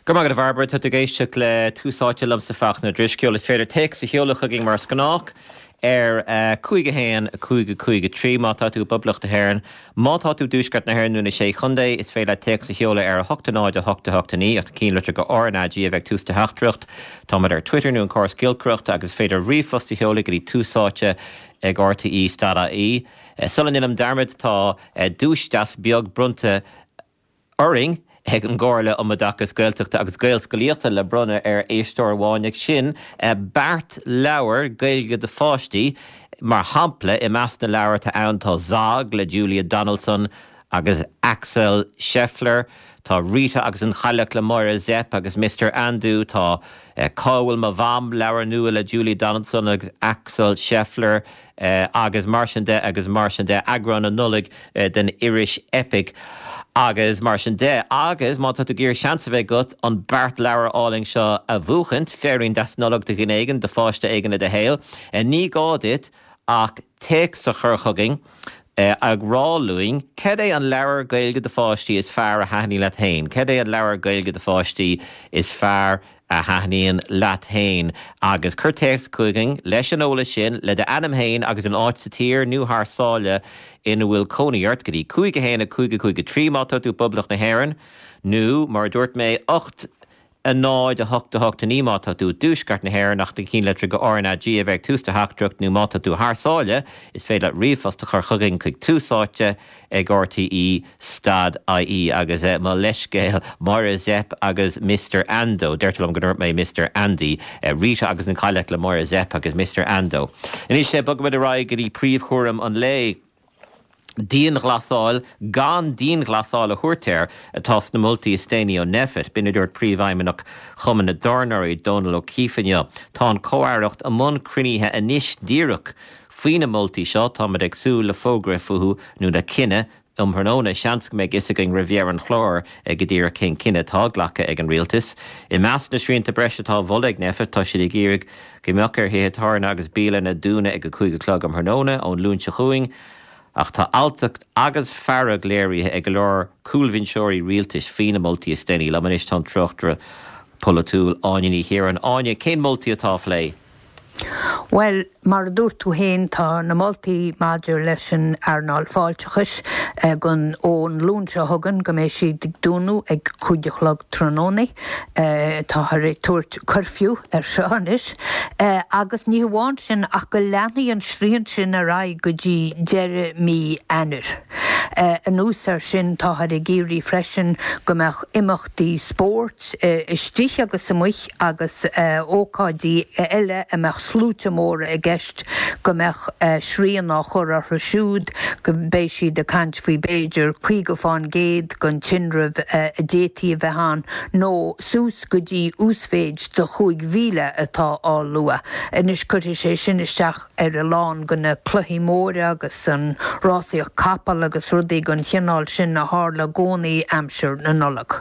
Go raibh maith agat a Bhairbre, tá tú ag éisteacht le Tús Áite liomsa Fachtna Ó Drisceoil. Is féidir téacs a sheoladh chugainn mar is gnách ar 5 1 5 5 3 má tá tú i bPoblacht na hÉireann. Má tá tú i dTuaisceart na hÉireann nó na Sé Chontae, is féidir leat téacs a sheoladh ar 8 0 8 8 9 ach na cinnlitir go RnaG a bheith ag tús do theachtaireacht. Táimid ar Twitter nó an córas giolcaireachta agus is féidir ríomhphost a sheoladh go dtí túsáite ag rte stad ie. Sula ndéanaim dearmad tá duais deas beag bronnta orainn ag an gComhairle um Oideachas Gaeltachta agus Gaelscolaíochta le bronnadh ar éisteoir amháin ag sin beart leabhar Gaeilge do pháistí. Mar shampla, i measc na leabhar atá ann tá Zog le Julia Donaldson agus Axel Scheffler, tá Rita agus an Chailleach le Máire Zepf agus Mister Ando, tá Cá bhfuil mo Mham, leabhar nua le Julia Donaldson agus Axel Scheffler, agus mar sin de agus mar sin de, eagrán na Nollag den iris Eipic agus mar sin de. Agus má tá tú ag iarraidh seans a bheith agat an beart leabhar álainn seo a bhuachaint, féirín deas Nollag do dhuine éigin, do pháiste éigin i do shaol, ní gá duit ach téacs a chur chugainn ag rá linn cad é an leabhar Gaeilge do pháistí is fearr a thaitníonn leat féin, cad é an leabhar Gaeilge do pháistí is fearr a thaitníonn leat féin agus cuir téacs chugainn leis an eolas sin, le d'ainm féin agus an áit sa tír nó thar sáile ina bhfuil cónaí ort, go dtí 5 1 5 5 3 má tá tú i bPoblacht na hÉireann, nó, mar a dúirt mé, 8 0 8 8 9 má tá tú i dTuaisceart na hÉireann ach na cinnlitreacha RnaG a bheith ag tús do theachtaireacht nó má tá tú thar sáile, is féidir leat ríomhphost a chur chugainn chuig Tús Áite ag RTÉ stad ie agus mo leithscéal, Máire Zepf agus Mister Ando, deirtear liom go ndúirt mé Mister Andy, Rita agus an Chailleach le Máire Zepf agus Mister Ando. Anois bogfaimid ar aghaidh go dtí príomhchúram an lae, dianghlasáil gan dianghlasáil a thabhairt air atá sna moltaí is déanaí ó Nphet. B'in a dúirt Príomhfheidhmeannach Chumann na dTábhairneoirí, Dónal O'Keeffe inniu. Tá an Comh-Aireacht i mbun cruinnithe anois díreach faoi na moltaí seo. Táimid ag súil le fógra fúthu nó le cinneadh um thráthnóna. Seans go mbeidh fhios againn roimh dheireadh an chláir go díreach cén cinneadh atá glactha ag an Rialtas. I measc na srianta breise atá á mholadh ag Nphet, tá siad ag iarraidh go mbeadh ar thithe tábhairne agus bialanna dúnadh ag 5 a chlog um thráthnóna ón Luan seo chugainn. Ach tá alltacht agus fearg léirithe ag go leor cúlbhinseoirí rialtais faoi na moltaí is déanaí. Liom anois tá an tráchtaire polaitiúil Áine Ní Chiaráin. Áine, cén moltaí atá á phlé? Bhuel, mar a dúirt tú féin, tá na moltaí maidir leis an earnáil fáilteachais gon ón Luan seo chugainn go mbeidh siad ag dúnadh ag 5 a chlog tráthnóna. Táthar ag tabhairt cuirfiú ar seo anois. Agus ní hamháin sin ach go leanfaidh an srian sin ar aghaidh go dtí deireadh mí Eanáir. Anuas air sin, táthar ag iarraidh freisin go mbeadh imeachtaí spóirt istigh agus amuigh agus ócáidí eile a mbeadh sluaite móra i gceist, go mbeadh srian á chur orthu siúd, go mbeidh siad ag caint faoi b'fhéidir 50 fán gcéad den tinreamh a d'fhéadfaí a bheith ann, nó suas go dtí uasmhéid de 5,000 atá á lua. Anois cuirfidh sé sin isteach ar a lán de na cluichí móra agus an rásaíocht capall agus rudaí den chineál sin a tharla i gcónaí aimsir na Nollag.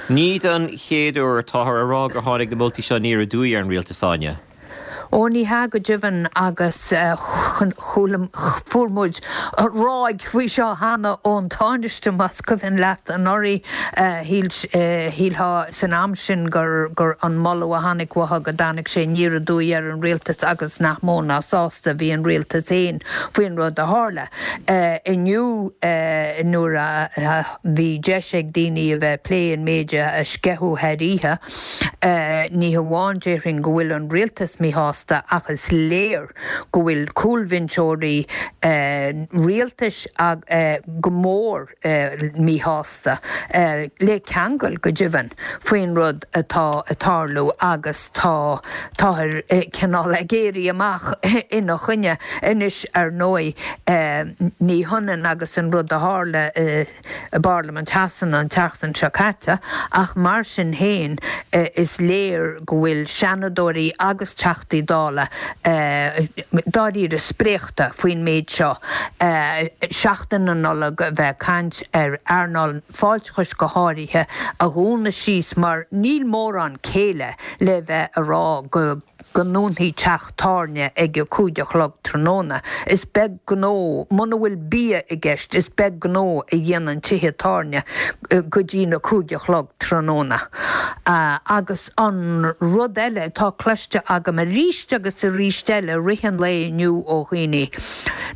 Ní don chéad uair atáthar a rá gur tháinig na moltaí seo aniar aduaidh ar an rialtas, Áine. Ó, ní hea go deimhin, agus chuala, fuair muid ráig faoi seo cheana ón Tánaiste, más cuimhin leat anuraidh. Shíl, shílfeá san am sin gur, gur an moladh a tháinig uathu go dtáinig sé aniar aduaidh ar an rialtas agus nach mó ná sásta a bhí an rialtas féin faoin rud a tharla. Inniu, nuair a bhí deis ag daoine a bheith ag plé an méid a sceitheadh thar oíche, ní hamháin déarfainn go bhfuil an rialtas míshásta ach is léir go bhfuil cúlbhinseoirí rialtais go mór míshásta, le ceangal go deimhin, faoin rud atá ag tarlú agus tá, táthar cineál ag éirí amach ina choinne. Anois, ar ndóigh, ní hionann agus an rud a tharla i bParlaimint Shasana an tseachtain seo caite, ach mar sin féin, is léir go bhfuil Seanadóirí agus Teachtaí. Dála dáiríre spréachta faoin méid seo, seachtain na Nollag a bheith ag caint ar earnáil fáilteachais go háirithe a dhúnadh síos mar níl mórán céille le bheith a rá go go ndúnfaí teach tábhairne ag a 5 a chlog tráthnóna. Is beag gnó, muna bhfuil bia i gceist, is beag gnó a dhéanann tithe tábhairne go dtí na 5 a chlog tráthnóna. Agus an rud eile atá cloiste agam arís agus arís eile i rith an lae inniu ó dhaoine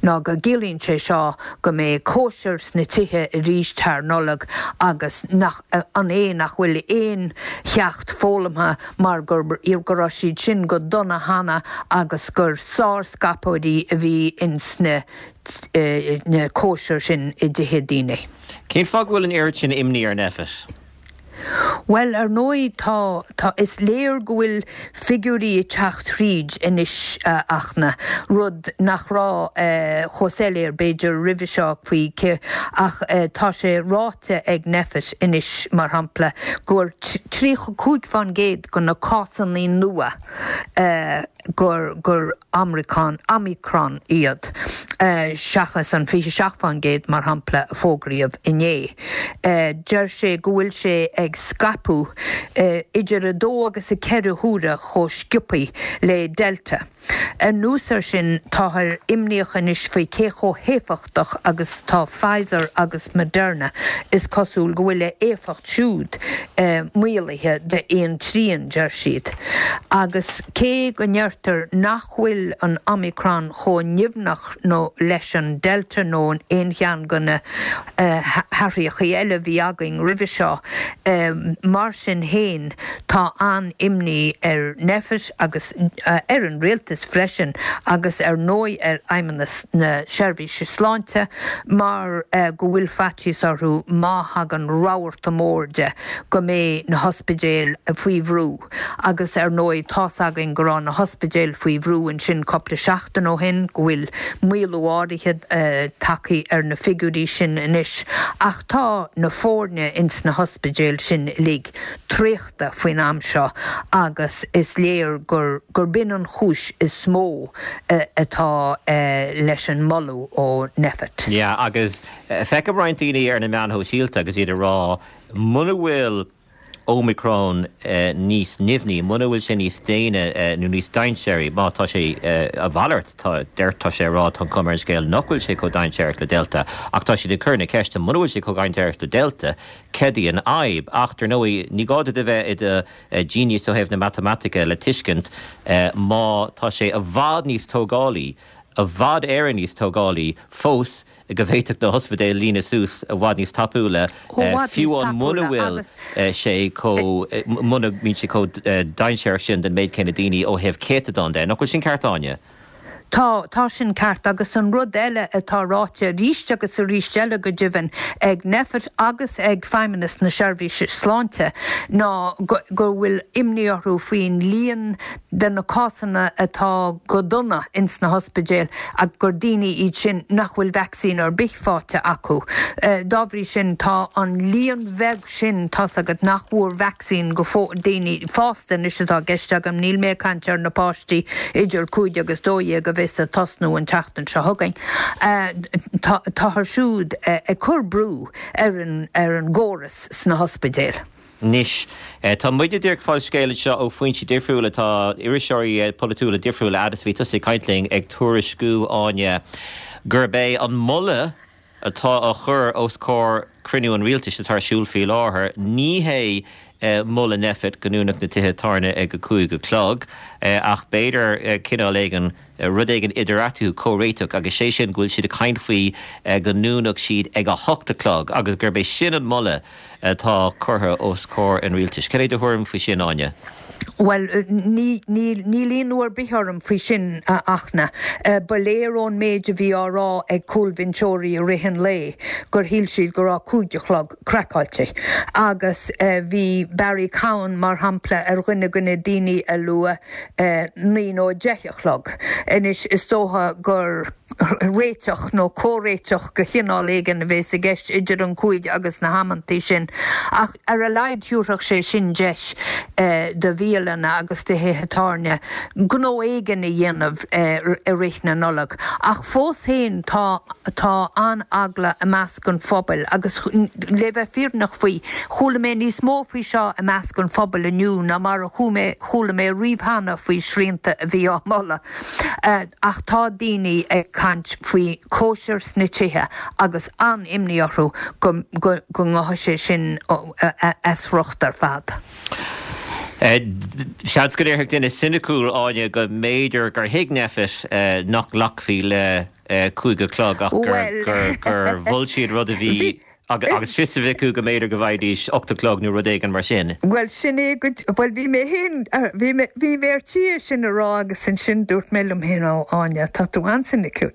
ná go gciallaíonn sé seo go mbeidh cóisir sna tithe arís thar Nollaig agus nach an é nach bhfuil aon cheacht foghlamtha mar go go raibh siad sin go dona cheana agus gur sárscaipeoirí a bhí ins na na cóisir sin i dtithe daoine. Cén fáth go bhfuil an oiread sin imní ar Nphet? Bhuel, ar ndóigh, tá, tá, is léir go bhfuil figiúirí ag teacht thríd anois, a Fhachtna, rud nach raibh chomh soiléir, b'fhéidir, roimhe seo faoi cé, ach tá sé ráite ag Nphet anois, mar shampla, gur 35% de na cásanna nua gur gur Omicron Omicron iad, seachas an 27%, mar shampla, a fógraíodh inné. Deir sé go bhfuil sé ag scaipeadh idir 2 agus 4 huaire chomh sciobtha le Delta. Anuas air sin, táthar imníoch anois faoi cé chomh héifeachtach agus atá Pfizer agus Moderna, is cosúil go bhfuil a éifeacht siúd maolaithe d'aon trian, deir siad. Agus cé go ndeirtear nach bhfuil an Omicron chomh nimhneach nó leis an Delta nó aon cheann de na hathraíochaí eile a bhí againn roimhe seo, mar sin féin tá an-imní ar Nphet agus ar an rialtas freisin agus ar ndóigh ar Fheidhmeannas na Seirbhíse Sláinte mar go bhfuil faitíos orthu má thagann rabharta mór de go mbeidh na hospidéil faoi bhrú agus ar ndóigh tá's againn go raibh na hospidéil faoi bhrú ansin cúpla seachtain ó shin, go bhfuil maolú áirithe tagtha ar na figiúirí sin anois ach tá na foirne ins na hospidéil sin uilig traochta faoin am seo agus is léir gur gur b'in an chúis is mó atá leis an moladh ó Nphet. Yeah agus feicim roinnt daoine ar na meáin shóisialta agus iad ag rá muna bhfuil Omicron níos nimhní, muna bhfuil sé níos déine nó níos dainséaraí, má tá sé a mhalairt, tá, deir, tá sé a rá, tá an chuma ar an scéal nach bhfuil sé chomh dainséarach le Delta, ach tá siad ag cur na ceiste, muna bhfuil sé chomh dainséarach le Delta, céard í an fhadhb? Ach, dar ndóigh, ní gá duit a bheith i do genius ó thaobh na matamaitice le tuiscint má tá sé i bhfad níos tógálaí, i bhfad Éireann níos tógálaí fós, go bhféadfadh na hospidéil líonadh suas i bhfad níos tapúla, fiú amháin muna bhfuil sé chomh, muna mbíonn sé chomh dainséarach sin don méid céanna daoine ó thaobh céatadán de. Nach bhfuil sin ceart, Áine? Tá, tá sin ceart. Agus an rud eile atá ráite arís agus arís eile go deimhin ag Nphet agus ag Feidhmeannas na Seirbhíse Sláinte ná go bhfuil imní orthu faoin líon de na cásanna atá go dona ins na hospidéil ach gur daoine iad sin nach bhfuil vacsaín ar bith faighte acu. Dá bhrí sin, tá an líon bheag sin, tá's agat, nach bhfuair vacsaín go fóill, daoine fásta anois atá i gceist agam, níl mé ag caint ar na páistí idir 5 agus 12 a bheas ag tosnú an tseachtain seo chugainn, táthar siúd ag cur brú ar an ar an gcóras sna hospidéil. Anois, tá muidne díreach ag fáil scéal anseo ó foinsí difriúla, tá iriseoirí polaitiúla difriúla, fhad is a bhí tusa ag caint linn, ag tuairisciú, Áine, gurb é an moladh atá á chur os comhair cruinniú an rialtais atá ar siúl faoi láthair, ní hé moladh Nphet go ndúnfadh na tithe tábhairne ag a 5 a chlog, ach b'fhéidir cineál éigin, rud éigin idir eatarthu, comhréiteach, agus sé sin go bhfuil siad ag caint faoi go ndúnfadh siad ag a hocht a chlog agus gurb é sin an moladh atá curtha os comhair an rialtais. Cad é do thuairim faoi sin, Áine? Bhuel, níl ionadh ar bith orm faoi sin, a Fhachtna. Ba léir ón méid a bhí á rá ag cúlbhinseoirí i rith an lae gur shíl siad go raibh 5 a chlog craiceáilte. Agus bhí Barry Cowen, mar shampla, ar dhuine de na daoine a luaigh 9 nó 10 a chlog. Anois, is dócha gur. réiteach nó comhréiteach de chineál éigin a bheas i gceist idir an 5 agus na hamantaí sin, ach ar a laghad thabharfadh sé sin deis do bhialanna. bialanna agus do thithe tábhairne gnó éigin a dhéanamh i rith na Nollag. Ach fós féin tá tá an-eagla i measc an phobail agus le bheith fírinneach faoi, chuala mé níos mó faoi seo i measc an phobail inniu ná mar a chuala mé riamh cheana faoi shrianta a bhí á moladh. Ach tá daoine ag caint faoi cóisir sna tithe agus an-imní orthu go ngabhfaidh sé sin as riocht ar fad. Seans go ndéarfadh duine soiniciúil, Áine, go mb'fhéidir gur thuig Nphet nach nglacfaí le 5 a chlog ach gur mhol siad rud a bhí agus fios a bheith acu go mb'fhéidir go bhfaighidís 8 a chlog nó rud éigin mar sin. Bhuel, sin é go, bhuel, bhí mé féin, bhí mé, bhí mé ar tí é sin a rá agus ansin dúirt mé liom féin, ó, Áine, tá tú an-soiniciúil.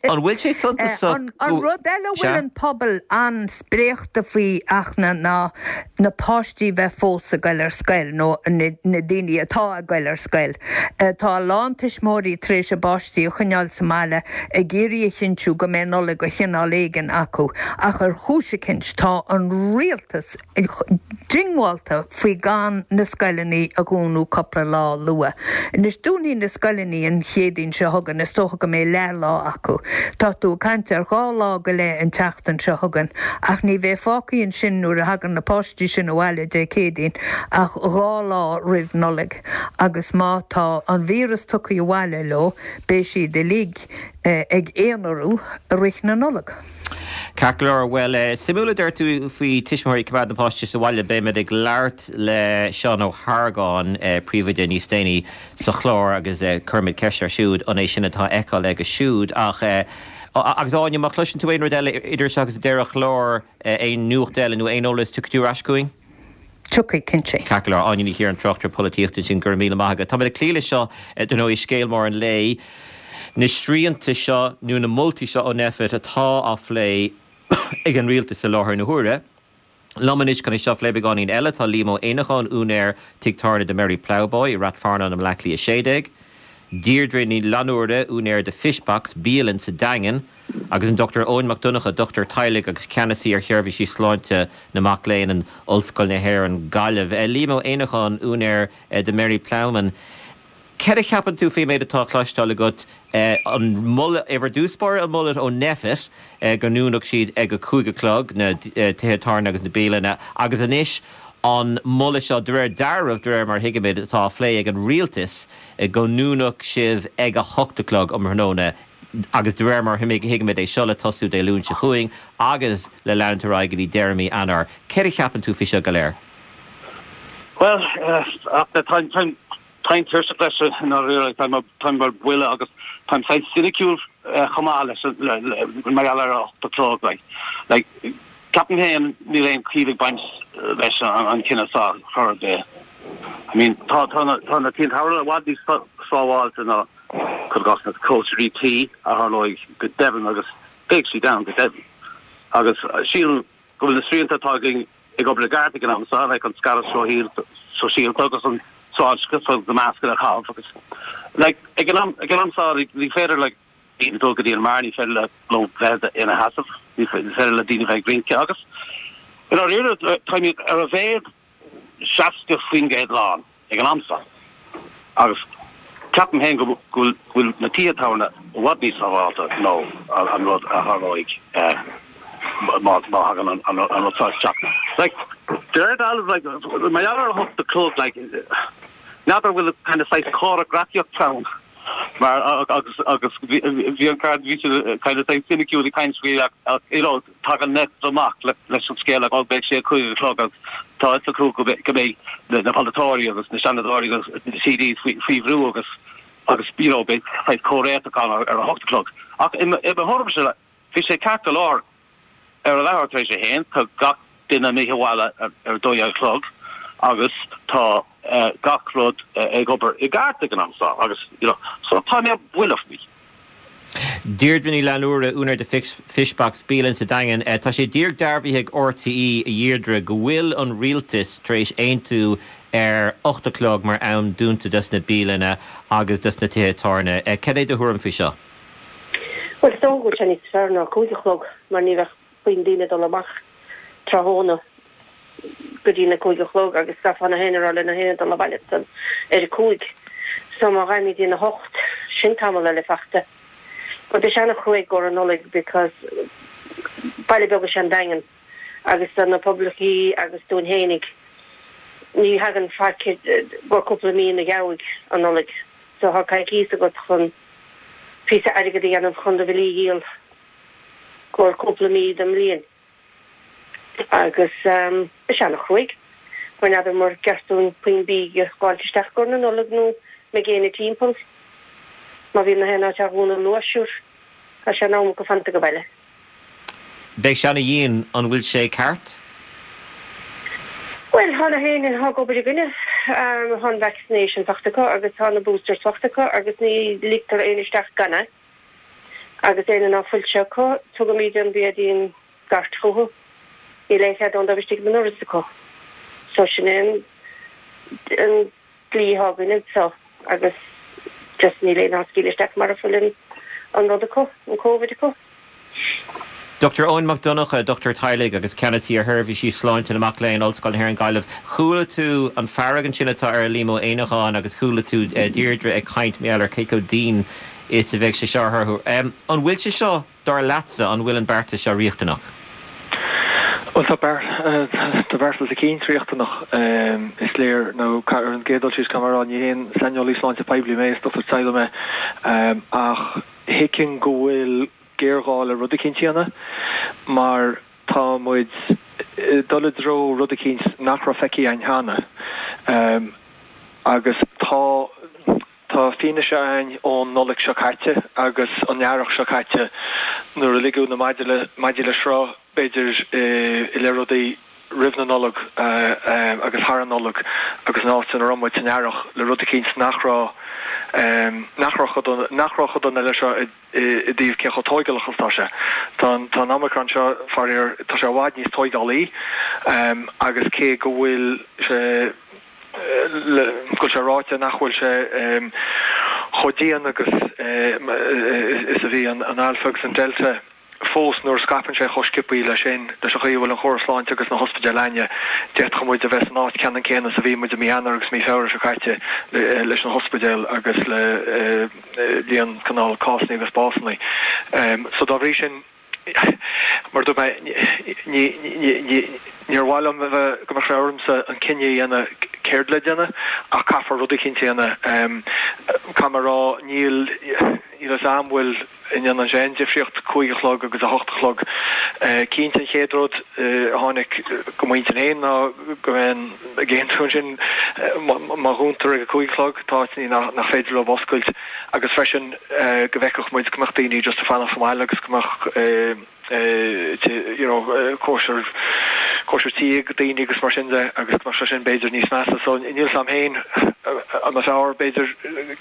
An bhfuil sé suntasach go. An rud eile a bhfuil an pobal an-spréachta faoi, Fhachtna, ná na páistí bheith fós ag goil ar scoil, nó na daoine atá ag goil ar scoil. Tá a lán tuismitheoirí tar éis a bpáistí a choinneáil sa mbaile ag iarraidh a chinntiú go mbeidh Nollaig de chineál éigin acu, ach ar chúis eicint tá an rialtas diongbháilte faoi gan na scoileanna a dhúnadh cúpla lá luath. Anois dúnfaidh na scoileanna an Chéadaoin seo chugainn, is dócha go mbeidh leath-lá acu. Tá tú ag caint ar dha lá go leith an tseachtain seo chugainn, ach ní bheidh fágtha ansin nuair a thagann na páistí sin abhaile Dé Céadaoin ach dha lá roimh Nollaig, agus má tá an víreas tugtha abhaile leo, beidh siad uilig ag aonarú i rith na Nollag. Ceart go leor. Bhuel, suimiúil a deir tú faoi tuismitheoirí ag coimeád na páistí sa bhaile. Beimid ag labhairt le Seán Ó hArgáin, príomhoide, níos déanaí sa chlár agus cuirfimid ceist air siúd an é sin atá á fheiceáil aige siúd. Ach, agus Áine, má chloiseann tú aon rud eile idir seo agus deireadh an chláir, aon nuacht eile nó aon eolas, tiocfaidh tú ar ais chugainn? Tiocfaidh, cinnte. Ceart go leor. Áine Ní Chiaráin, tráchtaire polaitíochta ansin, go raibh míle maith agat. Táimid ag cloí leis seo, dar ndóigh, scéal mór an lae, na srianta seo nó na moltaí seo ó Nphet atá á phlé ag an rialtas i láthair na huaire. Liom anois chun é seo a phlé beagáinín eile tá Liam Ó Éineacháin, úinéir tigh tábhairne The Merry Ploughboy i Rath Fearnáin i mBleá Cliath 16, Deirdre Ní Fhlannúra, úinéir The Fishbox, bialann sa Daingean, agus an Dr Eoin Mac Donncha, dochtúir teaghlaigh agus ceannasaí ar sheirbhísí sláinte na mac léinn in Ollscoil na hÉireann, Gaillimh. Liam Ó Éineacháin, úinéir The Merry Ploughman, céard a cheapann tú faoin méid atá á chloisteáil agat, an moladh, ar dtús báire, an moladh ó Nphet go ndúnfadh siad ag a 5 a chlog, na tithe tábhairne agus na bialanna, agus anois an moladh seo, de réir dealraimh, de réir mar a thuigimid, atá á phlé ag an rialtas, go ndúnfadh sibh ag a hocht a chlog um thráthnóna. agus de réir mar a thuigimid é seo le tosú Dé Luain seo chugainn agus le leanúint ar aghaidh go dtí deireadh mí Eanáir. Céard a cheapann tú faoi seo go léir? Bhuel, táim táim tuirseach leis i ndáiríre, táim ar buile agus táim saghas soiniciúil chomh maith leis mar gheall ar a hocht a chlog. Like, ceapaim féin níl aon chiall ag baint leis an cinneadh seo chor ar bith. I mean, tá na tithe tábhairne i bhfad níos sábháilte ná cuir i gcás na cóisirí tí a tharlóidh go deimhin agus beidh siad ann go deimhin. Agus sílim go bhfuil na srianta atá againn ag obair i gceart ag an am seo, like an scaradh sóisialta agus an sláinteachas agus na mascanna a chaitheamh agus like ag an am ag an am seo ní féidir le daoine dul go dtí an mbeár, ní féidir le leo bheith ina sheasamh, ní féidir le daoine bheith ag rince agus i ndáiríre táimid ar a mhéad 60% lán ag an am seo agus ceapaim féin go bhfuil na tithe tábhairne i bhfad níos sábháilte ná an rud a tharlóidh má thagann an rud seo isteach. Like, de réir dealraimh, like, mar gheall ar a hocht a chlog, like, n'fheadar an bhfuil kind of saghas comhfhreagraíocht ann mar agus agus bhí an card bhí siad kind of saghas soiniciúil ag caint faoi ach you know Tagann Nphet amach leis an scéal go mbeidh sé a 5 a chlog agus tá a fhios acu go mbeidh na polaiteoirí agus na seanadóirí agus na TDs faoi bhrú agus agus you know beidh saghas comhréiteach ann ar a hocht a chlog. Ach i mo thuairimse bhí sé ceart go leor ar a leathuair tar éis a haon, tá gach duine imithe abhaile ar a 12 a chlog agus tá gach rud ag obair i gceart ag an am seo agus you know so tá mé buille faoi. Deirdre Ní Fhlannúra, úinéir The Fishbox, bialann sa Daingean. Tá sé díreach dearbhaithe ag RTÉ, a Dheirdre, go bhfuil an rialtas tar éis aontú ar 8 a chlog mar am dúnta dos na bialanna agus dos na tithe tábhairne. Cad é do thuairim faoi seo? Bhuel, is dócha go bhfuil sé níos fearr ná 5 a chlog mar ní bheadh puinn daoine ag dul amach tráthnóna. go dtí na 5 a chlog agus caithfidh na héinne a rá le na héinne dul abhaile ansan ar a 5. So má ghabhaimid dtí na hocht, sin tamall eile fachta. But beidh sé ana-chruaidh i gcomhair an Nollaig because baile beag is ea an Daingean agus do na poiblíochaí agus dúinn fhéinig ní thagann faic i gcomhair cúpla mí an gheimhridh an Nollaig. So thá coicíos agat chun píosa airgid a dhéanamh chun do bhillí a dhíol i gcomhair cúpla mí den mbliain. Agus beidh sé ana-chruaidh, mar n'fheadar mur gceart dúinn puinn bídh a dh'fháilt isteach i gcomhair na Nollag nó mbeidh éinne timpeall. Má bhíonn na haon áit á dhúnadh luath, sure, tá sé in am acu fanta age baile. Beidh sé ana-dhian, an bhfuil sé ceart? Bhuel, tá na héinne atá ag obair againne, tá an vaccination fachta acu agus tá na boosters fachta acu agus ní ligtear éinne isteach gan é. Agus éinne ná fuil sé acu, tugaimid an bia dtí an gcairt chucu. Níl aon chead ann dóibh istigh ag an ndoras acu. So sin é an an dlí atá againn anseo agus just níl éinne á scaoileadh isteach mara bhfuil an an rud acu, an Covid acu. Dr Eoin Mac Donncha, Dochtúir Teaghlaigh agus Ceannasaí ar Sheirbhísí Sláinte na Mac Léinn, Ollscoil na hÉireann Gaillimh. Chuala tú an fearg ansin atá ar Liam Ó Éineacháin agus chuala tú Deirdre ag caint mar gheall ar cé chomh dian is a bheidh sé seo orthu. An bhfuil sé seo Dar leatsa, an bhfuil an beartas seo riachtanach? Bhuel, tá tá beartas eicínt riachtanach, is léir. Nó ar an gcéad dul síos, caithfidh mé a rá, ní haon saineolaí sláinte poiblí mé, is dochtúir teaghlaigh mé, ach thuigfinn go bhfuil géarghá le rud eicínt a dhéanamh, mar tá muid ag dul i dtreo rud eicínt nach raibh feicthe againn cheana. Agus tá. Tá fianaise againn ón Nollaig seo caite agus an Earrach seo caite nuair a ligeadh na maidí le sruth, b'fhéidir, i leith rudaí roimh na Nollag agus thar an Nollaig agus an áit ina raibh muid san Earrach le rud eicínt nach raibh nach raibh chomh dona nach raibh chomh dona leis seo i i dtaobh cé chomh tóigeálach is atá sé. Tá an tá an Omicron seo, faraor, tá sé i bhfad níos tóigeálaí agus cé go bhfuil sé go bhfuil sé ráite nach bhfuil sé chomh dian agus is a bhí an Alpha agus an Delta fós nuair a scaipeann sé chomh sciobthaí leis sin, leis an chaoi a bhfuil an chóras sláinte agus na hospidéil againne, d'fhéadfadh muid a bheith san áit ceannann céanna is a bhí muid i mí Eanáir agus mí Feabhra seo caite leis na hospidéil agus le líon cineál cásanna agus básanna. So dá bhrí sin. Mar a dúirt mé, níor mhaith liom a bheith, go mbeadh sé ormsa an cinneadh a dhéanamh céard le déanamh, ach caithfear rud eicínt a dhéanamh. Caithfidh mé a rá, níl, níl fhios a'm an bhfuil, an ndéanann sé aon difríocht 5 a chlog agus 8 a chlog. Cinnte an chéad rud a tháinig go m'intinn féin ná go mbeinn ag aontú ansin má dhúntar ag a 5 a chlog, tá áiteanna nach féidir leo oscailt agus freisin, go bhfeicfeadh muid go mbeadh daoine just ag fanacht sa mbaile agus go mbeadh you know cóisir cóisir tí ag daoine agus mar sin de agus go mbeadh sé sin b'fhéidir níos measa. So níl 'fhios a'm féin an mba fearr b'fhéidir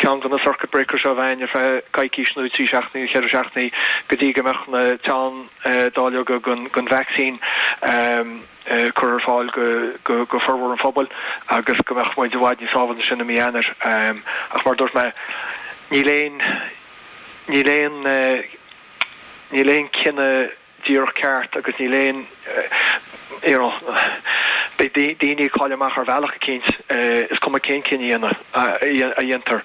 ceann de na circuit breakers seo a bheith ar feadh coicís nó 3 seachtainí nó 4 seachtainí go dtí go mbeadh na teann dáileoga den den vaccine curtha ar fáil go formhór an phobail agus go mbeadh muid i bhfad níos sábháilte ansin i mí Eanáir. Ach mar a dúirt mé, níl aon, níl aon, níl aon cinneadh díreach ceart agus níl aon, you know, beidh daoine ag cailleadh amach ar bhealach eicínt, is cuma cén cinneadh a dhéantar.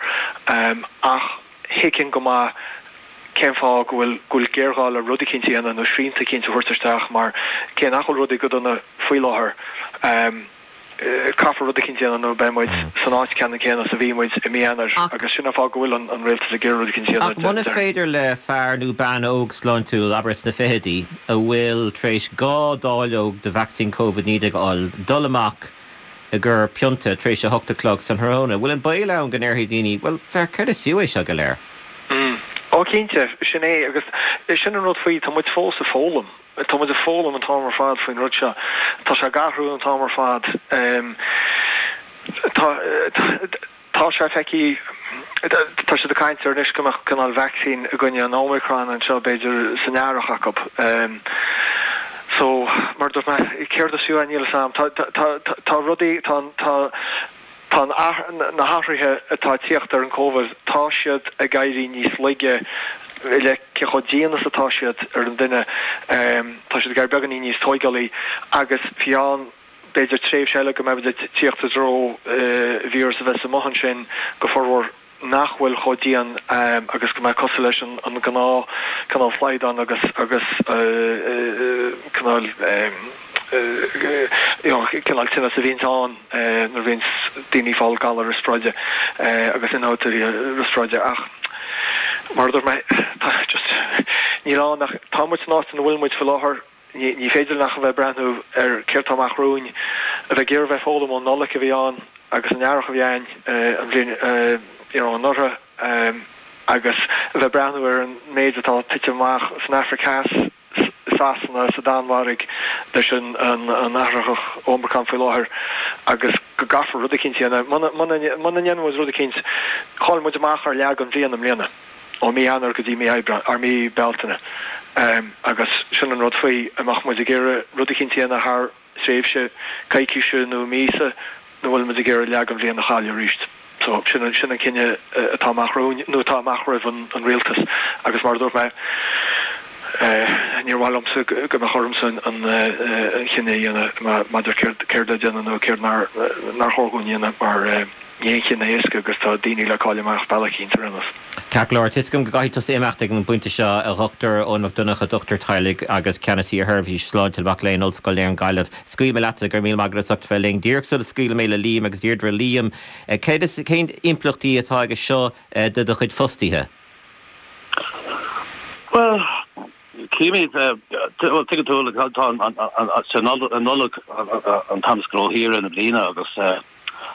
Ach. thuigfinn go maith cén fáth go bhfuil go bhfuil géarghá le rud eicínt a dhéanamh nó srianta eicínt a thabhairt isteach mar cé nach bhfuil rudaí go dona faoi láthair, caithfear rud eicínt a dhéanamh nó beidh muid san áit ceannann céanna is a bhí muid i mí Eanáir agus sin an fáth go bhfuil an rialtas ag iarraidh rud eicínt a dhéanamh. Ach muna féidir le fear nó bean óg sláintiúil, abair sna fichidí, a bhfuil tar éis 2 dáileog de vacsaín Covid-19 a fháil, dul amach i gcomhair pionta tar éis a hocht a chlog san thráthnóna. Bhfuil an baol ann go ndéarfaidh daoine, bhuel, féach, céard is fiú é seo go léir? Mm. Ó, cinnte, sin é, agus sin an rud faoi, tá muid fós ag foghlaim. Tá muid ag foghlaim an t-am ar fad faoin rud seo. Tá sé ag athrú an t-am ar fad. Tá, tá sé feicthe, tá siad ag caint ar anois go mbeadh cineál vacsaín i gcoinne an Omicron anseo b'fhéidir san earrach acu. So, mar a dúirt mé, céard is fiú é, níl a fhios a'm. Tá, tá, tá rudaí, tá, tá, tá an, na hathruithe atá ag tíocht ar an Covid, tá siad ag éirí níos laige i leith cé chomh dian is atá siad ar an duine. Tá siad ag éirí beagáinín níos tóigeálaí agus fiú amháin. b'fhéidir tréimhse eile go mbeimid ag tíocht i dtreo víreas a bheas amuigh ansin go formhór nach bhfuil chomh dian agus go mbeidh cosúil leis an gnáth cineál slaghdán agus agus cineál you know cineál tinneas a bhíonns ann nuair a bhíonns daoine ag fáil galar riospráide agus ionfhabhtuithe riospráide ach mar a dúirt mé tá just níl ann ach tá muid san áit ina bhfuil muid faoi láthair. Ní féidir linn ach a bheith ag breathnú ar céard tá amach romhainn, a bheith ag iarraidh a bheith ag foghlaim ón Nollaig a bhí ann agus an earrach a bhí ann an bhliain you know anuraidh agus a bheith ag breathnú ar an méid atá ag titim amach san Afraic Theas, i Sasana, sa Danmhairg leis an an athraitheach Omicron faoi láthair agus go gcaithfear rud eicínt a dhéanamh. Muna muna muna ndéanann muid rud eicínt, chaill muid amach ar leath den bhliain i mbliana. ó mí Eanáir go dtí mí Aibreáin, or mí Bealtaine. Agus sin an rud faoi, an mbeadh muid ag iarraidh rud eicínt a dhéanamh thar thréimhse coicíse nó míosa nó bhfuil muid ag iarraidh leath den bhliain a chailleadh arís. So sin an, sin an cinneadh atá amach romhainn, nó atá amach roimh an, an rialtas. Agus mar a dúirt mé, níor mhaith liomsa go mbeadh ormsa an, an chinneadh a dhéanamh maidir céard, céard le déanamh nó céard nár, nár chóir dhúinn a dhéanamh mar. Ní haon chinneadh éasca agus tá daoine le cailleadh amach bealach eicínt ar aon nós. Ceart go leor, tá 'fhios agam go gcaithfidh tusa imeacht ag an bpointe seo, a Dhochtúir Eoin Mac Donncha, dochtúir teaghlaigh agus Ceannasaí ar Sheirbhís Sláinte Mhac Léinn Ollscoil na hÉireann Gaillimh. Scaoilfidh mé leatsa, go raibh míle maith agat as ucht bheith linn. Díreach sula scaoilfidh mé le Liam agus Deirdre, Liam, céard is, cén impleachtaí atá aige seo do do chuid fostaithe? Bhuel, címid, bhuel, tuigeann tú, tá an Nollaig an t-am is gnóthaí i rith na bliana agus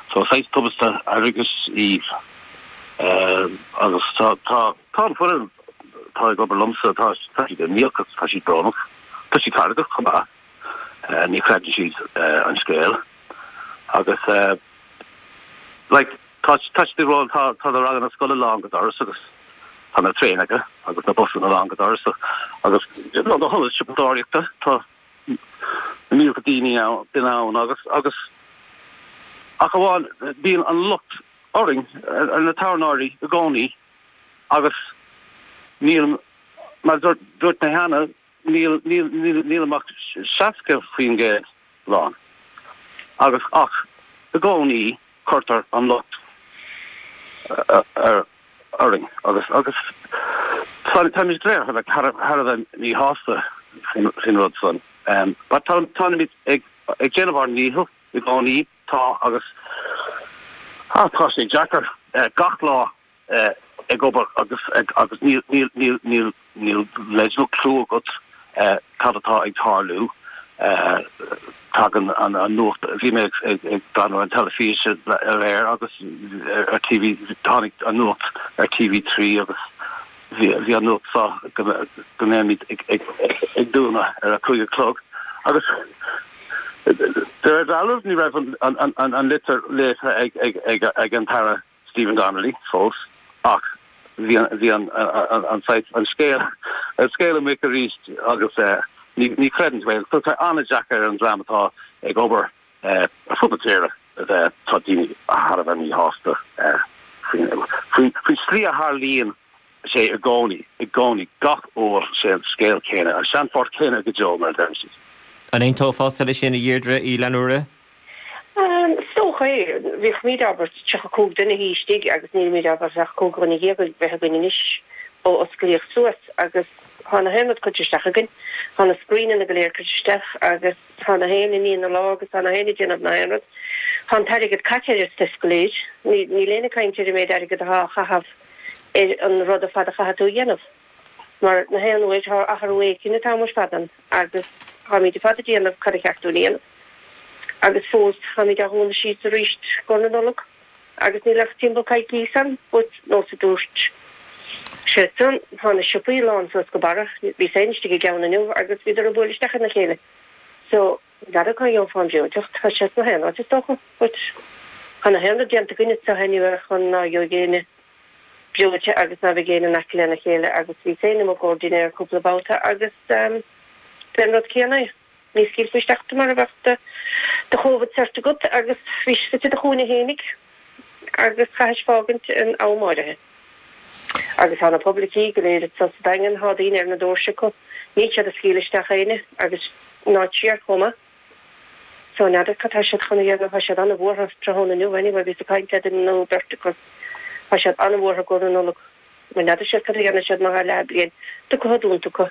so saghas tubaiste airgeadais í agus tá tá tá an foireann atá ag obair liomsa, tá tá siad imníoch agus tá siad brónach, tá siad feargach chomh maith, ní chreideann siad an scéal agus like Tá tá siad ag rá tá tá na ranganna scoile lán go doras agus tá na traenacha agus na busanna lán go doras agus na hionaid siopadóireachta tá na mílte daoine ann duine ann agus agus ach amháin bíonn an locht orainn ar na tábhairneoirí i gcónaí agus níl mar dúirt dúirt mé cheana níl níl níl níl ach 60% lán agus ach i gcónaí cuirtear an locht orainn agus agus táimid go léir thar a bheith míshásta faoin rud san. But táimid ag déanamh ár ndícheall i gcónaí, tá agus tá sé deacair gach lá ag obair agus agus níl níl níl níl níl leid nó clue agat cad atá ag tarlú. Tagann an an nuacht, bhí mé ag ag breathnú ar an teilifís aréir agus ar TV, tháinig an nuacht ar TV3 agus bhí bhí an nuacht seo go go mbeimid ag ag ag dúnadh ar a 5 a chlog agus de réir dealraimh ní raibh an an an an litir léite ag ag ag ag an tAire Stephen Donnelly fós ach bhí an bhí an an saghas an scéal an scéal amuigh arís agus ní ní chreideann tú é. So tá an-deacair ar an dream atá ag obair ar fud na tíre a bheith tá daoine thar a bheith míshásta faoin faoin faoin slí a tharlaíonn sé i gcónaí i gcónaí gach uair sé an scéal céanna an seanphort céanna go deo mar a deireann siad. An aontófása leis sin a Dheirdre Uí Fhlannúra? Is dócha é. Bhíodh muid, abair, 35 duine istigh agus nílimid, abair, ach 15 dhuine a bheith againn anois ó osclaíodh suas agus tá na haon rud curtha isteach againn. Tá na screenanna go léir curtha isteach agus tá na haon ag ní na lámha agus tá na haon ag déanamh na haon rud. Tá an t-airgead caite ar an stuif go léir. Níl éinne ag caint ar an méid airgead atá á chaitheamh ar an rud ar fad a chaithfidh tú a dhéanamh. Mar na haon uair tá athrú éicint an t-am ar fad ann agus táimid ar fad ag déanamh cad a cheart dúinn a dhéanamh. Agus fós táimid á dhúnadh síos arís go na Nollag agus níl ach timpeall coicís ann but nós a dúirt sé san tá na siopaí lán suas go barra. Bhíos féin istigh i gceann inniu agus bhíodar ag bualadh isteach ina chéile. So n'fheadar cá gheofá an breoiteacht, tá sé sna haon áit is dócha but tá na haon rud déanta againn anseo anyway chun ná gheobhaidh éinne breoite agus ná beidh éinne in aice lena chéile agus bhíos féin amuigh i gcomhair dinnéir cúpla babhta agus b'é an rud céanna é. Ní scaoilfí isteach tú mura mbeadh do do Covid cert agat agus bhís suite i do chúinne fhéinig agus chaithis fágaint in am áirithe. Agus tá na poiblicí go léir anso sa Daingean, tá daoine ar na doirse acu, níl siad ag scaoileadh isteach éinne agus ná siar chomh maith. So n'fheadar cad tá siad chun a dhéanamh, tá siad an-bhuartha tráthnóna inniu anyway, bhíos ag caint le duine nó beirt acu, tá siad an-bhuartha i gcomhair na Nollag mar n'fheadar siad cad a dhéanfaidh siad má tá leathbhliain tugtha dúnta acu.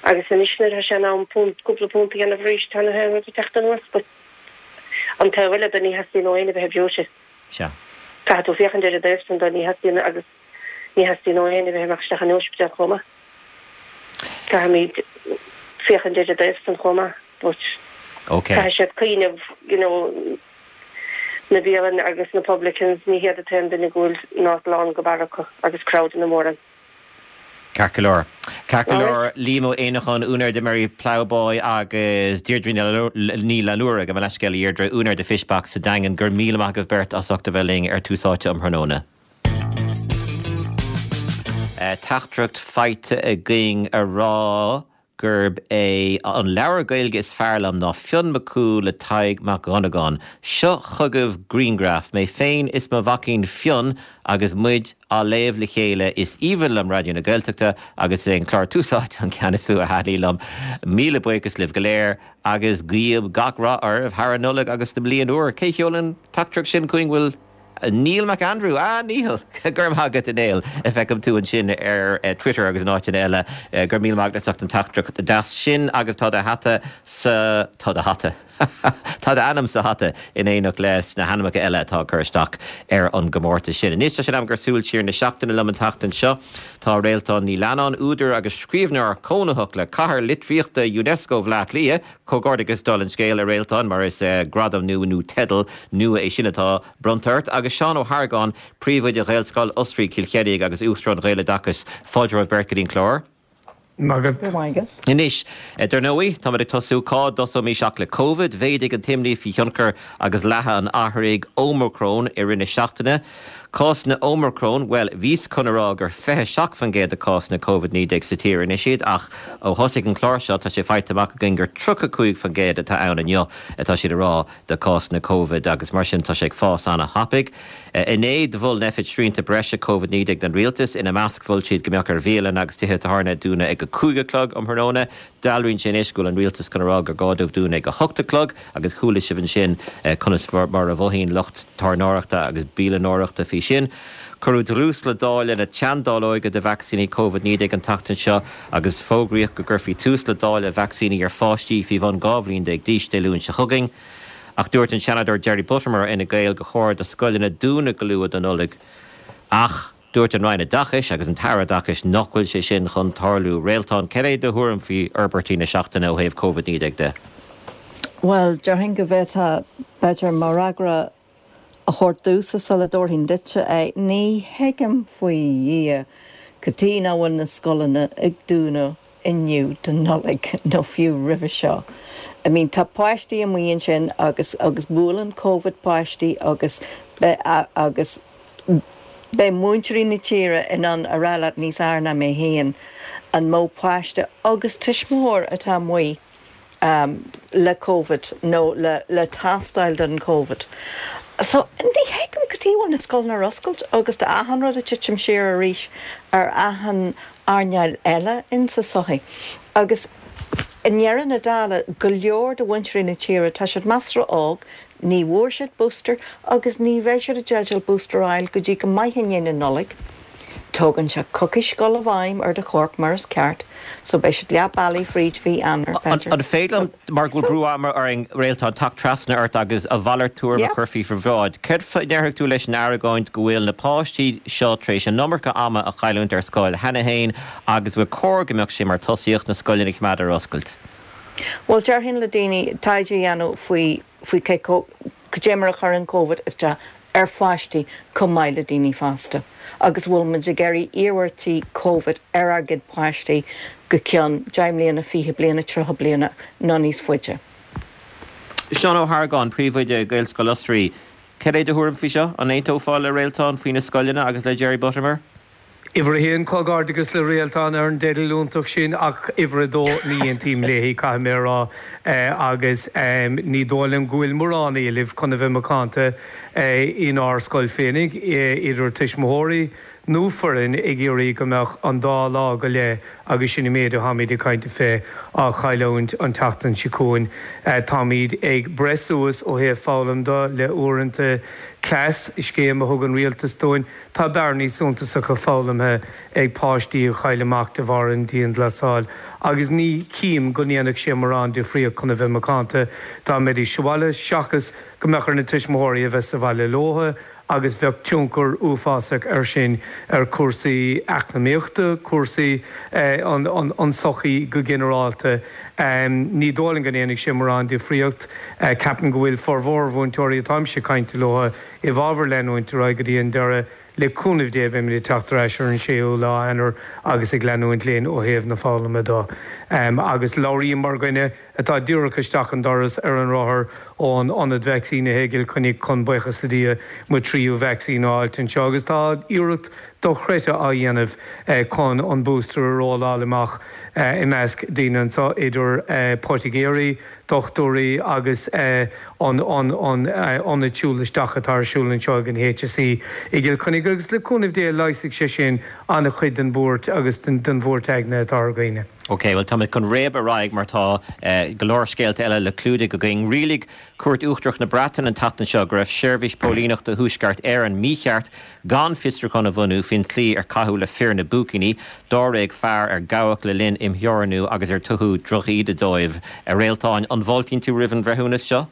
Agus anois nuair atá sé in am punt, cúpla punt a dhéanamh arís tá na haon rud ag teacht anuas but an taobh eile de ní theastaíonn ó éinne bheith breoite. Sea. Caithfidh tú féachaint ar an dtaobh san de, ní theastaíonn agus ní theastaíonn ó éinne bheith ag imeacht isteach in ospidéal chomh maith. Caithfimid féachaint ar an dtaobh san chomh maith but Ok. caithfidh siad cuimhneamh you know na bialanna agus na publicans ní hiad an t-aon duine go bhfuil not lán go barr acu agus crowdanna móra ann. Ceart go leor. Ceart go leor. Liam Ó Éineacháin, úinéir de Merry Ploughboy agus Deirdre Ní Fhlannúra, gabh mo leithscéal a Dheirdre, úinéir de Fish Box sa Daingean, go raibh míle maith agaibh beirt as ucht a bheith linn ar Tús Áite um thráthnóna. Teachtaireacht faighte againn a rá gurb é an leabhar Gaeilge is fearr liom ná Fionn Mac Cumhaill le Tadhg Mac Dhonnagáin. Seo chugaibh grianghraf, mé féin is mo mhaicín Fionn agus muid á léamh le chéile. Is aoibhinn liom Raidió na Gaeltachta agus is é an clár Tús Áite an ceann is mó a thaitníonn liom. Míle buíochas libh go léir agus guím gach rath oraibh thar an Nollaig agus sa mbliain úr. Cé sheol an teachtaireacht sin chugainn? Bhfuil. Neil McAndrew, Ah, Neil! Go raibh maith agat, a Néill. Feicim tú ansin ar Twitter agus in áiteanna eile. Go raibh míle maith agat as ucht an teachtaireacht deas sin agus tá do hata sa, tá do hata, tá d'ainm sa hata in éineacht leis na hainmneacha eile atá ag cur isteach ar an gcomórtas sin. Anois tá sé in am gur súil siar na seachtaine liom an tseachtain seo. Tá Réaltán Ní Leannáin, údar agus scríbhneoir cónaitheach le Cathair Litríochta Unesco Bhaile Átha Cliath, Comhghairdeachas dála an scéil, a Réaltán, mar is gradam nua nó teideal nua é sin atá bronnta ort. Agus Seán Ó hArgáin, Príomhoide Ghaelscoil Osraí, Cill Chainnigh agus Uachtarán Ghaeloideachas. Fáilte romhaibh beirt go dtí an clár. Maith agat. Anois, dar ndóigh, táimid ag tosú, cá dtosóimis ach le Covid. Mhéadaigh an t-imní faoi thionchar agus leathadh an athraithigh Ómacrón i rith na seachtaine. Cásanna Ómacrón, bhuel, bhíos chun a rá gur 27% de cásanna Covid-19 sa tír anois iad ach ó thosaigh an clár seo tá sé faighte amach againn gur 35% atá ann inniu atá siad a rá de cásanna Covid agus mar sin tá sé ag fás ana-thapaidh. Inné do mhol Nphet srianta breise Covid-19 don rialtas, ina measc mhol siad go mbeadh ar bhialanna agus tithe tábhairne dúnadh ag 5 a chlog um thráthnóna. Dealraíonn sé anois go bhfuil an rialtas chun a rá gur gá dóibh dúnadh ag 8 a chlog agus chuala sibh ansin conas mar a mhothaíonn lucht tábhairneoireachta agus bialannóireachta faoi sin. Cuireadh dlús le dáileadh na teanndáileoige de vacsaíní Covid-19 an tseachtain seo agus fógraíodh go gcuirfí tús le dáileadh vacsaíní ar pháistí faoi bhun 12 bhliain d'aois Dé Luain seo chugainn. Ach dúirt an Seanadóir Jerry Buttimer ó Fhine Gael gur chóir do scoileanna dúnadh go luath don Nollaig ach Dúirt an Roinn Oideachais agus an tAire Oideachais nach bhfuil sé sin chun tarlú. Réaltán, cad é do thuairim faoi fhorbairtí na seachtaine ó thaobh Covid-19 de? Bhuel, déarfainn go bhféadfá, b'fhéidir, mo fhreagra a thabhairt domhsa sula dtabharfainn duitse é. Ní thuigim faoi Dhia cad chuige nach bhfuil na scoileanna ag dúnadh inniu don Nollaig nó fiú roimhe seo. I mean tá páistí amuigh ansin agus agus buaileann Covid páistí agus agus beidh múinteoirí na tíre in ann a rá leat níos fhearr ná mé féin an mó páiste agus tuismitheoir atá amuigh le Covid nó le le tástáil don Covid. So ní thuigim cad chuige a bhfuil na scoileanna ar oscailt agus tá achan rud ag titim siar arís ar achan earnáil eile in sa sochaí. Agus i ndeireadh na dála, go leor de mhúinteoirí na tíre, tá siad measartha óg, ní bhfuair siad booster agus ní bheidh siad i dteideal booster a fháil go dtí go maith i ndiaidh na Nollag. Tógann sé coicís dul i bhfeidhm ar do chorp mar is ceart, so beidh siad leath bealaigh fríd mhí Eanáir, b'fhéidir. An féidir liom, mar go bhfuil brú ama orainn, Réaltán, teacht trasna ort agus a mhalairt tuairim a chur faoi bhráid. Céard a déarfadh tú leis an argóint go bhfuil na páistí seo tar éis an iomarca ama a chailliúint ar scoil cheana féin agus gur chóir go mbeadh sé mar tosaíocht na scoileanna a choimeád ar oscailt? Bhuel, déarfainn le daoine taighde a dhéanamh faoi faoi cé cad é mar a chuireann Covid isteach ar pháistí chomh maith le daoine fásta agus bhfuil muid ag iarraidh iarmhairtí Covid ar ár gcuid páistí go ceann 10 mbliana, 20 bliana, 30 bliana nó níos faide. Seán Ó hArgáin, Príomhoide Gaelscoil Osraí, Cad é do thuairim faoi seo? An aontófá le Réaltán faoi na scoileanna agus le Jerry Buttimer? Uimhir a haon, Comhghairdeachas le Réaltán ar an dteideal iontach sin ach uimhir a dó, ní aontaím léi, caithfidh mé a rá, agus ní dóigh liom go bhfuil mórán éilimh, chun a bheith macánta, inár scoil féinig, idir tuismitheoirí. nó foireann ag iarraidh go mbeadh an dá lá go leith agus sin an méid atáimid ag caint fé á chailliúint an tseachtain seo chugainn. Táimid ag breith suas ó thaobh foghlaim de le uaireanta cleas, scéim a thug an rialtas dúinn. Tá bearnaí suntasacha foghlamtha ag páistí a chaill amach de bharr an dianghlasáil agus ní chím go ndéanfadh sé morán difríocht chun a bheith macánta dá mbeidís sa bhaile seachas go mbeadh ar na tuismitheoirí a bheith sa bhaile leotha agus bheadh tionchar uafásach air sin ar chúrsaí eacnamaíochta, cúrsaí an tsochaí go ginearálta. Ní dóigh liom go ndéanfaidh sé morán difríocht. Ceapaim go bhfuil formhór mhúinteoirí atáimse ag caint leo i bhfabhar leanúint ar aghaidh go dtí an deireadh. Le cúnamh Dé beimid ag teacht ar ais ar an séú lá Eanáir agus ag leanúint linn ó thaobh na foghlama de. Agus labhraím mar dhuine atá díreach isteach an doras ar an rothar ón ionad vacsaínithe i gCill Chainnigh chun, buíochas le Dia, mo thríú vacsaín a fháilt anseo agus tá iarracht dochreidte á dhéanamh chun an booster a rolláil amach i measc daoine anseo, idir poitigéirí, dochtúirí agus an ionad siúl isteach atá ar siúl anseo ag an HSE i gCill Chainnigh agus le cúnamh Dé leigheasfaidh sé sin an-chuid den bhuairt agus den bhuairt aigne atá ar dhaoine. Ok, bhuel táimid chun réabadh ar aghaidh mar tá go leor scéalta eile le clúdaigh againn. Rialaigh Cúirt Uachtarach na Breataine an tseachtain seo go raibh Seirbhís Póilíneachta Thuaisceart Éireann mícheart gan fiosrúchán a bhunú faoin tslí ar caitheadh le fir na bpúicíní, dáréag fear ar gabhadh le linn imtheorannú agus ar tugadh drochíde dóibh. A Réaltáin, an bhfáiltíonn tú roimh an bhreithiúnas seo?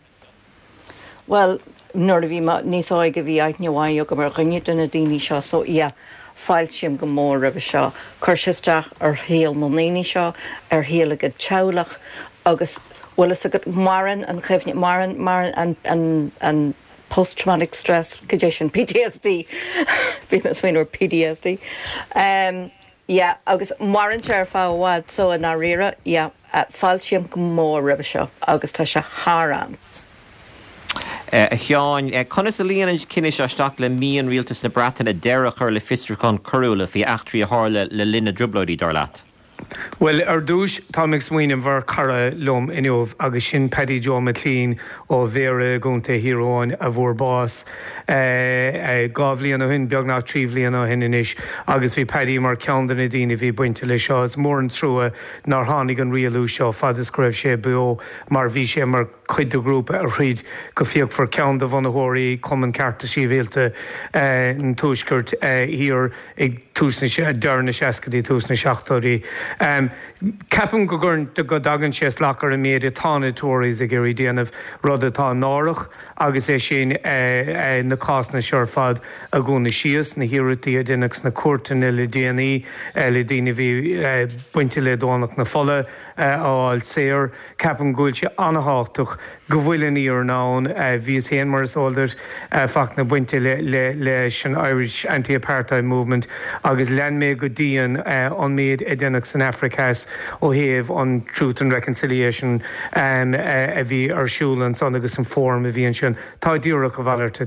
Bhuel, nuair a bhí mé níos óige bhí aithne mhaith agam ar dhuine de na daoine seo so yeah, fáiltím go mór roimhe seo. Chuir sé isteach ar shaol na ndaoine seo, ar shaol a gcuid teaghlach agus bhfuil fhios agat, maireann an chuimhne, maireann, maireann an, an, an post traumatic stress, cad é sin, PTSD, bhí mé ag smaoineamh ar PDSD. Um, yeah, agus maireann sé ar feadh i bhfad so i ndáiríre, yeah, fáiltím go mór roimhe seo agus tá sé thar am. A Sheáin, conas a luíonn an cinneadh seo isteach le mian Rialtas na Breataine deireadh a chur le fiosrúcháin coiriúla faoi eachtraí a tharla le linn na dTrioblóidí, dar leat? Bhuel, ar dtúis, táim ag smaoineamh ar chara liom inniu agus sin Paddy Joe McClean ó Bhéarra i gContae Thír Eoghain a bhfuair bás 2 bhliain ó shin, beagnach 3 bhliana ó shin anois, agus bhí Paddy mar cheann de na daoine a bhí bainte leis seo. Is mór an trua nár tháinig an rialú seo fad is go raibh sé beo mar bhí sé mar chuid de ghrúpa a throid go fíochmhar, ceann de bhunaitheoirí Chumann Cearta Sibhialta an Tuaiscirt Thiar. ag tús na, deireadh na seascaidí, tús na seachtóidí. Ceapaim go gcuireann, go dtagann sé salach ar an méid atá na Tories ag iarraidh déanamh, rud atá náireach agus é sin na cásanna seo ar fad a dhúnadh síos, na hiarrachtaí a deineadh sna cúirteanna le déanaí le daoine a bhí bainte le Domhnach na Fola a fháil saor. Ceapaim go bhfuil sé an-thábhachtach go bhfuil an fhírinne ann. Bhíos féin, mar is eol duit, Fachtna, bainte leis an Irish Anti-Apartheid Movement agus lean mé go dian an méid a deineadh san Afraic Theas ó thaobh an Truth and Reconciliation a bhí ar siúl ansan agus an fóram a bhí ansin. Tá díreach a mhalairt,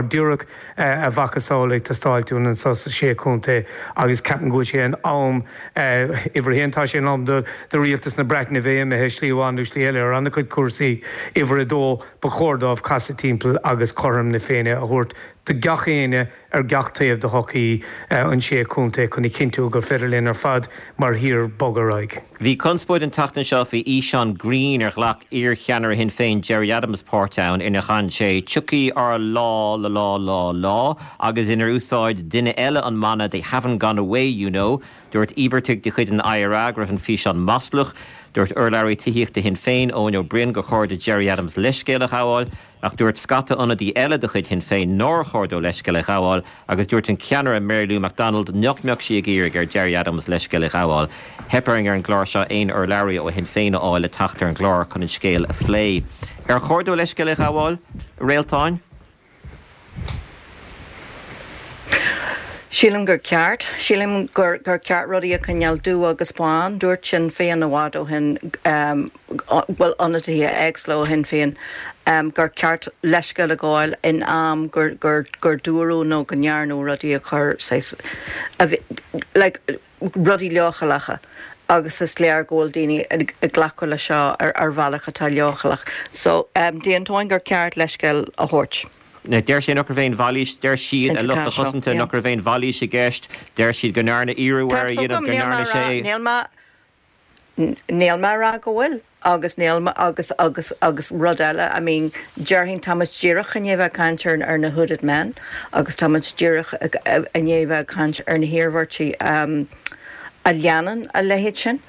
díreach a mhacasamhail ag teastáilt uainn anso sa Sé Chontae agus ceapaim go bhfuil sé in am, uimhir a haon, tá sé in am do rialtas na Breataine bheith imithe slí amháin nó slí eile ar an-chuid cúrsaí, uimhir a dó, ba chóir dóibh casadh timpeall agus cothrom na Féinne a thabhairt do gach éinne ar gach taobh de shochaí an Sé Chontae chun a chinntiú gur féidir linn ar fad mar thír bogadh ar aghaidh. Bhí conspóid an tseachtain seo faoi fhíseán grinn ar ghlac iarcheannaire Shinn Féin Gerry Adams páirt ann inar chan sé 'Tiocfaidh ár lá lá lá lá lá' agus inar úsáid duine eile an mana 'They haven't gone away, you know'. Dúirt íobartaigh de chuid an IRA go raibh an físeán maslach. Dúirt urlabhraí tithíochta Shinn Féin, Eoin Ó Broin, gur chóir do Gerry Adams leithscéal a ghabháil. Ach dúirt scata ionadaí eile de chuid Shinn Féin nár chóir dó leithscéal a ghabháil agus dúirt an ceannaire Mary Lou McDonald nach mbeadh sí ag iarraidh ar Gerry Adams leithscéal a ghabháil. Theip orainn ar an gclár seo aon urlabhraí ó Shinn Féin a fháil le teacht ar an gclár chun an scéal a phlé. Ar chóir dó leithscéal a ghabháil, a Réaltáin? Sílim gur ceart. Sílim gur gur ceart rudaí a choinneáil dubh agus bán. Dúirt Sinn Féin i bhfad ó shin, bhuel ionadaithe éagsúla ó Shinn Féin, gur ceart leithscéal a ghabháil in am gur gur gur dúradh nó go ndearnadh rudaí a chur saghas a bhí like rudaí leochaileacha agus is léir go bhfuil daoine ag glacadh leis seo ar ar bhealach atá leochaileach. So d'aontóinn gur ceart leithscéal a thabhairt. Deir sé nach raibh aon mhailís, deir siad, a lucht a chosanta, nach raibh aon mhailís i gceist. Deir siad go ndearnadh iarraidh air a dhéanamh, go ndearna sé é. Níl mé, níl mé a rá go bhfuil agus níl mé, agus, agus, agus rud eile, I mean, déarfainn tá muid díreach i ndiaidh bheith ag caint ar, ar na hooded men agus tá muid díreach i ndiaidh bheith ag caint ar na hiarmhairtí a leanann a leithéid sin.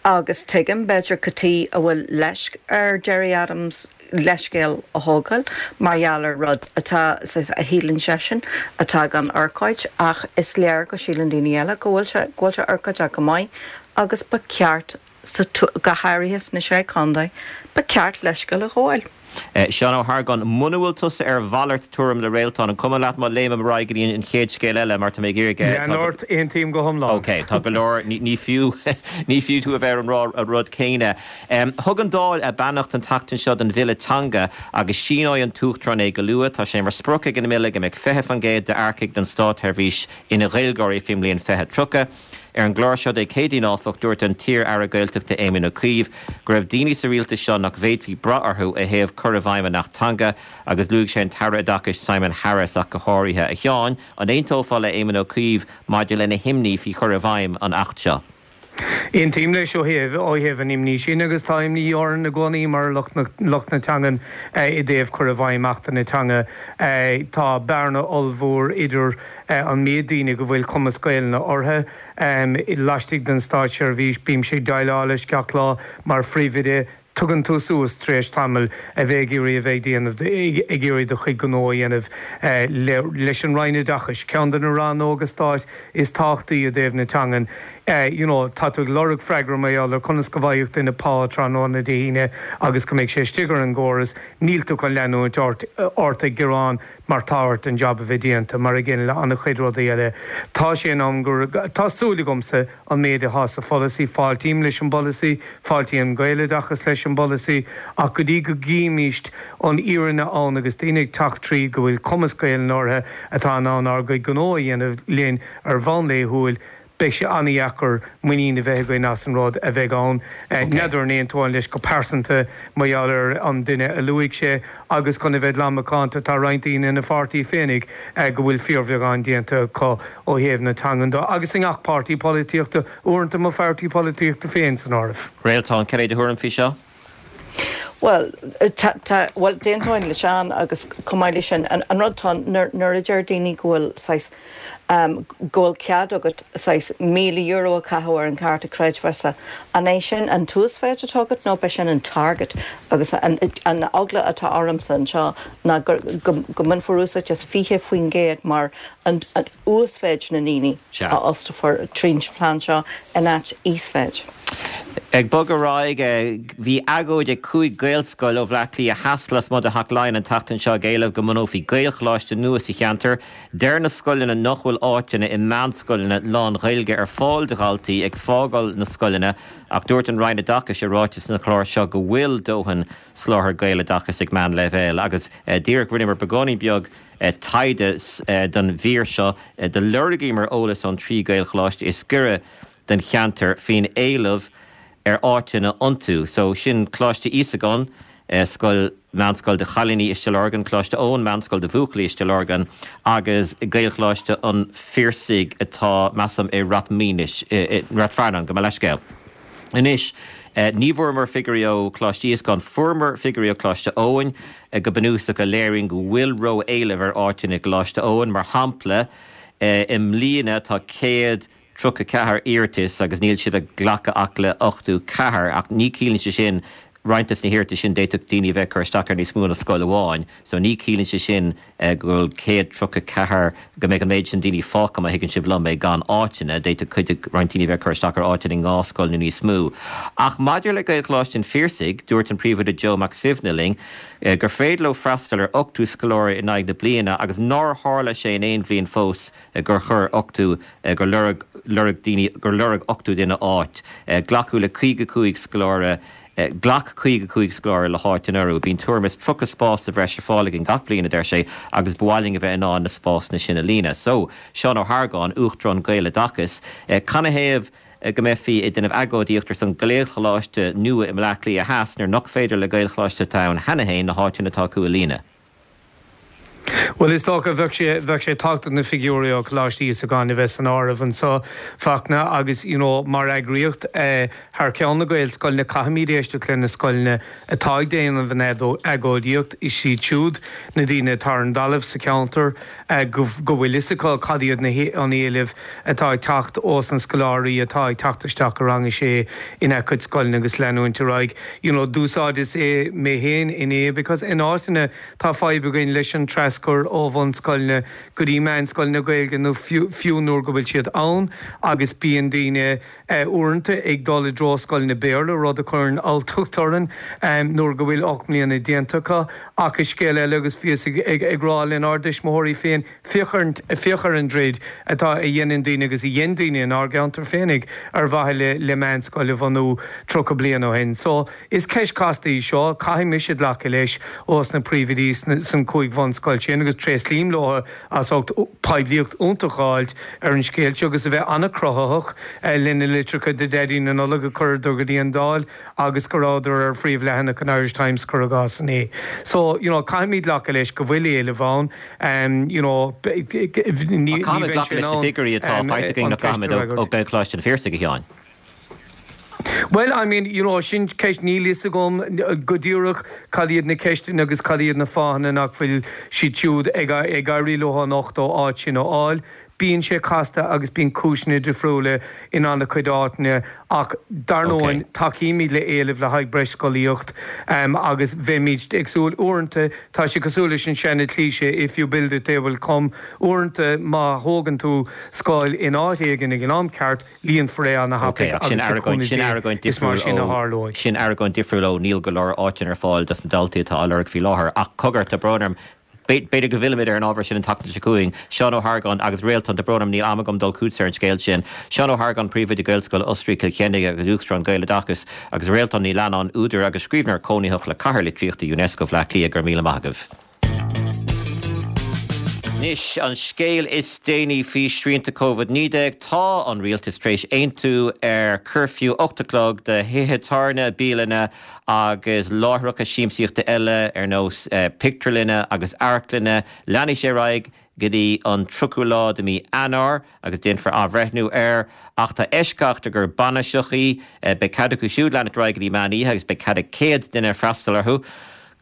Agus tuigim, b'fhéidir, cad chuige a bhfuil leisc ar Gerry Adams leithscéal a thógáil mar gheall ar rud atá, a shíleann seisean, atá gan urchóid, ach is léir go síleann daoine eile go bhfuil sé, go bhfuil sé urchóideach go maith agus ba cheart, sa, go háirithe sna Sé Chontae, ba cheart leithscéal a ghabháil. Seán Ó hArgáin, Muna bhfuil tusa ar mhalairt tuairim le Réaltán, an cuma leat má léimim ar aghaidh go dtí an chéad scéal eile mar tá mé ag iarraidh, tá Lean ort, aontaím go hiomlán. Ok, tá go leor, ní fiú, ní fiú tú a bheith ar an rá an rud céanna. Thug an Dáil a beannacht an tseachtain seo don bhille teanga agus síneoidh an tUachtarán é go luath. Tá sé mar sprioc ag an mbille go mbeidh 20% d'earcaigh don státsheirbhís ina Ghaeilgeoirí faoin mbliain 2030. Ar an gclár seo Dé Céadaoin, áfach, dúirt an t-iar-aire Gaeltachta Éamon Ó Cuív go raibh daoine sa rialtas seo nach bhféadfaí brath orthu ó thaobh cur i bhfeidhm an Acht Teanga agus luaigh sé an tAire Oideachais Simon Harris ach go háirithe. A Sheáin, an aontófá le Éamon Ó Cuív maidir lena himní faoi chur i bhfeidhm an Acht seo? Aontaím leis ó thaobh ó thaobh an imní sin agus tá imní orainn i gcónaí mar lucht na lucht na teangan i dtaobh cur i bhfeidhm Achtanna Teanga. Tá bearna ollmhór idir an méid daoine go bhfuil cumas Gaelainne orthu laistigh den státseirbhís. Bímse ag déileáil leis gach lá mar phríomhoide. Tugann tú suas tar éis tamaill a bheith ag iarraidh a bheith ag déanamh, ag iarraidh do chuid gnó a dhéanamh leis an Roinn Oideachais, ceann de na rannóga stáit is tábhachtaí i dtaobh na teangan. You know, tá tú ag lorg freagra mar gheall ar conas go bhfaigheadh duine pá tráthnóna Dé hAoine agus go mbeidh sé istigh ar an gcóras. Níl tú chun leanúint ort ag gearán mar tá ort an jab a bheith déanta, mar a gcéanna le an-chuid rudaí eile. Tá sé in am gur, tá súil agamsa an méid atá sa pholasaí, fáiltím leis an bpolasaí, fáiltíonn Gaeloideachas leis an bpolasaí, ach go dtí go gcímíst an fhírinne ann agus daoine ag teacht tríd go bhfuil cumas Gaelainne orthu atá in ann ár gcuid gnó a dhéanamh linn ar bhonn laethúil, Beidh sé an-dheacair muinín a bheith againn as an rud a bheidh ann. N'fheadar an aontóinn leis go pearsanta mar gheall ar an duine a luaigh sé agus chun a bheith glan macánta tá roinnt daoine ina pháirtí féinig go bhfuil fíorbheagán déanta acu ó thaobh na teangan de agus i ngach páirtí polaitíochta, uaireanta mo pháirtí polaitíochta féin san áireamh. Réaltán, cad é do thuairim faoi seo? Bhuel, tá, tá, bhuel, d'aontóinn le Seán agus chomh maith leis sin, an, an rud atá ann, nuair, nuair a deir daoine go bhfuil saghas, ehm, go bhfuil cead agat saghas €1,000 a chaitheamh ar an chárta creidmheasa, an é sin an t-uasmhéid atá agat nó ab é sin an target? Agus an, an eagla atá ormsa anseo ná go, go, go mbainfear úsáid as 20% mar an, an uasmhéid na ndaoine a fhostófar tríd an phlean seo in áit íosmhéid. Ag bogadh ar aghaidh, bhí agóid ag 5 Gaelscoil ó Bhleá Cliath Theas lasmuigh de Theach Laighean an tseachtain seo ag éileamh go mbunófaí Gaelcholáiste nua sa cheantar. Deir na scoileanna nach bhfuil áiteanna i meánscoileanna lán-Ghaeilge ar fáil do dhaltaí ag fágáil na scoileanna ach dúirt an Roinn Oideachais i ráiteas sa chlár seo go bhfuil dóthain soláthar Gaeloideachais ag meánleibhéal agus díreach rinneamar beagáinín beag taighde don mhír seo. Do lorgaíomar eolas ón trí Ghaelcholáiste is gaire don cheantar faoin éileamh ar áiteanna iontu. So sin Coláiste Íosagáin, scoil, meánscoil do chailíní i Stigh Lorgan, Coláiste Eoin, meánscoil do bhuachaillí i Stigh Lorgan agus Gaelcholáiste an Phiarsaigh atá, measaim, i Rath Maoinis, i Rath Fearnáin, gabh mo leithscéal. Anois, ní bhfuaireamar figiúirí ó Choláiste Íosagáin, fuaireamar figiúirí ó Choláiste Eoin, go bunúsach, a léiríonn go bhfuil ró-éileamh ar áiteanna i gColáiste Eoin. Mar shampla, i mbliana tá 134 iarratas agus níl siad ag glacadh ach le 84, ach ní chiallaíonn sé sin, roinnt des na hiarratais sin d'fhéadfadh daoine a bheith ag cur isteach ar níos mó ná scoil amháin, so ní chiallaíonn sé sin go bhfuil 134, go mbeidh an méid sin daoine fágtha, má thuigeann sibh liom é, gan áiteanna. D'fhéadfadh cuid de, roinnt daoine a bheith ag cur isteach ar áiteanna i ndhá scoil nó níos mó. Ach maidir le Gaelcholáiste an Phiarsaigh, dúirt an Príomhoide Joe Mac Suibhne linn gur féidir leo freastal ar 80 scoláire in aghaidh na bliana agus nár tharla sé in aon bhliain fós gur chuir 80, gur lorg, lorg daoine, gur lorg 80 duine áit. Glacadh le 55 scoláire, ghlac 55 scoláire le háit anuraidh. Bíonn tuairim is 30 spás sa bhreis ar fáil againn gach bliain, a deir sé, agus ba mhaith linn a bheith in ann na spásanna sin a líonadh. So, Seán Ó hArgáin, Uachtarán Gaeloideachas, canathaobh go mbeifí ag déanamh agóidíocht ar son Gaelcholáiste nua i mBleá Cliath Theas nuair nach féidir le Gaelcholáiste atá ann cheana féin na háiteanna atá acu a líonadh? Bhuel, is dócha, bheadh sé, bheadh sé tábhachtach na figiúirí ó Choláiste Íosagáin a bheith san áireamh anseo, Fachtna, agus, you know, mar eagraíocht, eh, thar ceann na Gaelscoileanna, caithfimid éisteacht le na scoileanna atá ag déanamh an agóidíocht, is iad siúd na daoine atá ar an dtalamh sa cheantar, eh, go, go bhfuil fhios acu cad iad na, an éilimh atá ag teacht ós na scoláirí atá ag teacht isteach i rang a sé ina gcuid scoileanna agus leanúint ar aghaidh. You know, d'úsáideas é mé féin inné because in áiteanna, Tá fadhb againn leis an traschur ó bhunscoileanna go dtí meánscoileanna Gaeilge nó fiú nuair go bhfuil siad ann agus bíonn daoine uaireanta ag dul i dtreo scoileanna Béarla, rud a chuireann alltacht orainn nuair go bhfuil 8 mbliana déanta acu. Ach is scéal eile agus bhíos ag rá lenár dtuismitheoirí féin, féach ar féach ar an dtroid atá a dhéanann daoine agus a dhein daoine inár gceantar féinig ar mhaithe le meánscoil a bhunú 30 bliain ó shin. So. Is ceist chasta í seo, caithfidh mise glacadh leis ós na príomhoidí san 5 bhunscoil sin agus tréaslaím leo as ucht poiblíocht iontach a fháilt ar an scéal seo agus a bheith an-chruthaitheach lena litreacha do Dhaidí na Nollag a chuireadar go dtí an Dáil agus go rabhadar ar phríomhleathanach an Irish Times cuir i gcás inné. So, you know, caithfimid glacadh leis go bhfuil éileamh ann, you know, ní bheidh sé in ann an ceist na figiúirí atá faighte againn nach gcaithfimid ó Ghaelcholáiste an Phiarsaigh, a Sheáin. Bhuel, I mean, you know, sin ceist, níl fhios agam go díreach cad iad na ceisteanna agus cad iad na fáthanna nach bhfuil siad siúd ag éirí leo an 80 áit sin a fháil. Bíonn sé casta agus bíonn cúiseanna difriúla in an-chuid áiteanna ach dar ndóigh tacaímid le éileamh le haghaidh breis scolaíocht agus bheimid ag súil, uaireanta tá sé cosúil leis an seana cliché if you build it they will come, uaireanta má thógann tú scoil in áit éigin ag an am ceart, líonfar é ana-thapaidh agus sin le argóint cúnamh sin Dé argóint is mar difriúil sin a ó tharlóidh. sin argóint difriúil ó níl go leor áiteanna ar fáil dos na daltaí atá á lorg faoi láthair. Ach cogar, tá brón orm, b'fhéidir go bhfillfimid ar an ábhar sin an tseachtain seo chugainn. Seán Ó hArgáin agus Réaltán, tá brón orm, níl am agam dul chugatsa ar an scéal sin. Seán Ó hArgáin, Príomhoide Gaelscoil Osraí Cill Chainnigh agus Uachtarán Gaeloideachas, agus Réaltán Ní Leannáin, údar agus scríbhneoir cónaitheach le Cathair Litríochta Unesco Bhleá Cliath, go raibh míle maith agaibh. Anois, an scéal is déanaí faoi shrianta Covid-19, tá an rialtas tar éis aontú ar cuirfiú 8 a chlog do thithe tábhairne, bialanna agus láithreacha siamsaíochta eile ar nós pictiúrlanna agus amharclanna. Leanfaidh sé ar aghaidh go dtí an 30ú lá de mhí Eanáir agus déanfar athbhreithniú air. Ach tá eisceacht i gcomhair bainiseachaí, beidh cead acu siúd leanacht ar aghaidh go dtí meán oíche agus beidh cead ag 100 duine freastal orthu.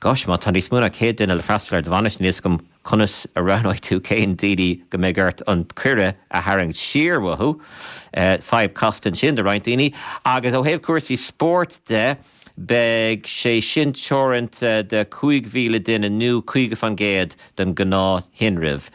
Gosh, má tá níos mó ná 100 duine le freastal ar do bhainis, níl 'fhios agam conas a roghnóidh tú cén daoine go mbeidh ort an cuireadh a tharraingt siar uathu. Fadhb casta ansin do roinnt daoine. Agus ó thaobh cúrsaí spóirt de, beidh sé sin teoranta do 5,000 duine nó 50% den ghnáth-thinreamh.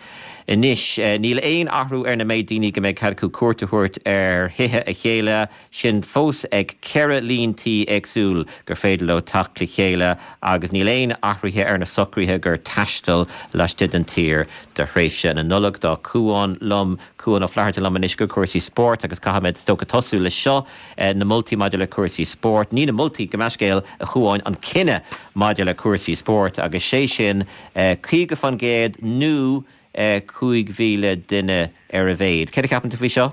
Anois, níl aon athrú ar na méid daoine go mbeidh cead acu cuairt a thabhairt ar thithe a chéile. sin fós ag 4 líon tí éagsúil gur féidir leo teacht le chéile agus níl aon athruithe ar na socruithe gur taisteal laistigh den tír do thréimhse na Nollag. Tá Cuán liom, Cuán Ó Flatharta liom anois go cúrsaí spóirt agus caithfimid is dócha tosú le seo, na moltaí maidir le cúrsaí spóirt, ní na moltaí, gabh mo leithscéal, a Chuáin, an cinneadh maidir le cúrsaí spóirt agus sé sin 50% nó 5,000 duine ar a mhéad. Céard a cheapann tú faoi seo?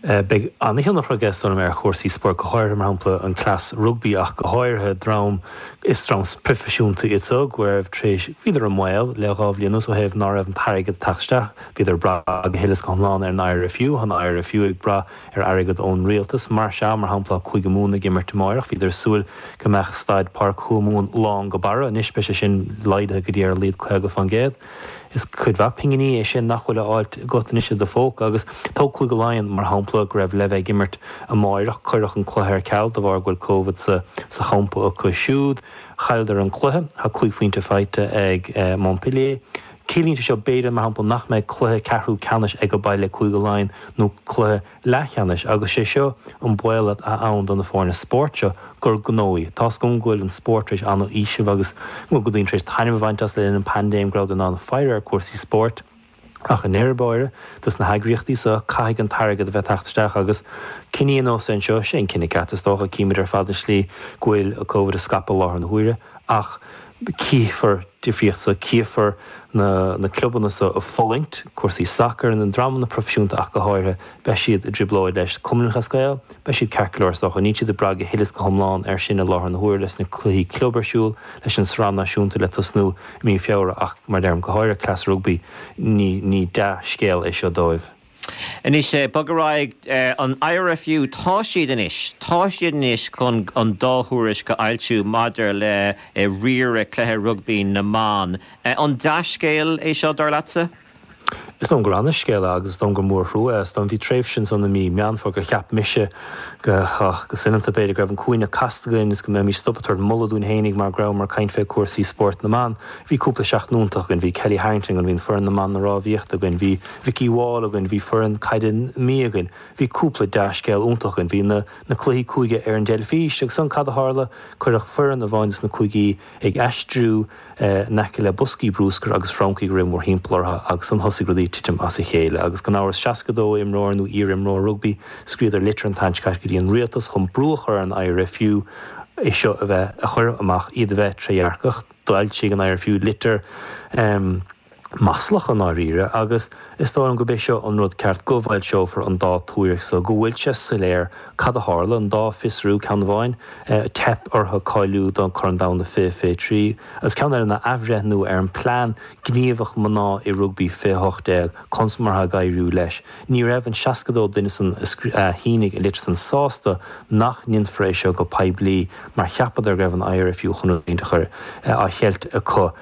Beidh an-thionchar aige, is dóigh liom, ar chúrsaí spóirt, go háirithe, mar shampla, an cleas rugbaí ach go háirithe dream, is dream proifisiúnta iad so, go raibh tar éis, bhíodar i mbaol le dhá bhliain anuas ó thaobh ná raibh an t-airgead ag teacht isteach, bhíodar ag brath go huile is go hiomlán ar an IRFU, tá an IRFU ag brath ar airgead ón rialtas. Mar sea, mar shampla, tá Cúige Mumhan ag imirt amáireach, bhíodar ag súil go mbeadh staid Páirc Thuamhumhan lán go barra, anois beidh sé sin laghdaithe go dtí ar a laghad 50%. Is cuid mhaith pinginí é sin nach bhfuil á fháilt agat anois i do phóca. Agus tóg Cúige Laighean, mar shampla, go raibh le bheith ag imirt amáireach. Cuireadh an cluiche ar ceal de bharr go bhfuil Covid sa sa champa acu siúd. Chailleadar an cluiche. Tá cúig phointe faighte ag Montpellier. Ciallaíonn sé seo b'fhéidir, mar shampla, nach mbeidh cluiche ceathrú ceannais ag baile ag Cúige Laighean nó cluiche leathcheannais agus sé seo an baol atá ann do na foirne spóirt seo, gur gnó í. Tá's agam go bhfuil an spórt tar éis an-fhaoiseamh agus go bhfuil daoine tar éis taitneamh a bhaint as le linn an paindéim, go rabhadar in ann faire ar cúrsaí spóirt. Ach i ndeireadh báire, dos na heagraíochtaí seo, caithfidh an t-airgead a bheith ag teacht isteach agus cinní ar nós an seo, sé an cinneadh ceart is dócha, címid ar fad an slí go bhfuil Covid ag scaipeadh i láthair na huaire ach. Cífear difríocht so, cífear na na clubanna so ag fulaingt, cúrsaí sacair, na dreamanna proifisiúnta ach go háirithe, beidh siad i dtrioblóid leis. Cumann Lúthchleas Gael, beidh siad ceart go leor is dócha. Níl siad ag brath go huile is go hiomlán air sin i láthair na huaire leis na cluichí club ar siúl, leis an sraith náisiúnta le tosnú i mí Feabhra ach mar a deirim, go háirithe cleas rugbaí, ní ní dea-scéal é seo dóibh. Anois, bog ar aghaidh, an IRFU, tá siad anois, tá siad anois chun an dá thuairisc a fhoilsiú maidir le riaradh cluiche rugbaí na mban. An dea-scéal é seo, dar leatsa? Is dóigh liom gur ana-scéal é agus is dóigh liom gur mórthrua é. Is dóigh liom bhí tréimhse ansan i mí Meán Fómhair gur cheap mise go, go soineanta b'fhéidir, go raibh an cúinne casta againn is go mbeimis stop ag tabhairt moladh dúinn fhéinig mar go rabhamar ag caint fé cúrsaí spóirt na mban. Bhí cúpla seachtain iontach againn, bhí Kellie Harrington againn, bhí an foireann na mban na rámhaíochta againn, bhí Vikki Wall againn, bhí foireann caide na Mí againn, bhí cúpla dea-scéal iontach againn, bhí na na cluichí cúige ar an dteilifís agus ansan cad a tharla? Cuireadh foireann amháin dos na cúigí ag aistriú in aice le boscaí brúscair agus francaigh ag rith mórthimpeall orthu agus ansan thosaigh rudaí ag titim as a chéile agus gan amhras 62 imreoir nó iar-imreoir rugbaí scríobhadar litir an tseachtain seo caite go dtí an rialtas chun brú a chur ar an IRFU é seo a bheith a chur amach iad a bheith trédhearcach. D'fhoilsigh an IRFU litir maslach i ndáiríre agus is dóigh liom gurb é seo an rud ceart, go bhfoilseofar an dá tuairisc so, go bhfuil sé soiléir cad a tharla, an dá fiosrú, ceann amháin, teip orthu cáiliú don Chorn Domhanda 2023 agus ceann eile ná athbhreithniú ar an plean gníomhach mná i rugbaí 2018, conas mar atá ag éiriú leis. Ní raibh an 62 duine san a shínigh an litir san sásta nach ndéanfar é seo go poiblí mar cheapadar go raibh an IRFU chun rud éigin a chur á cheilt acu.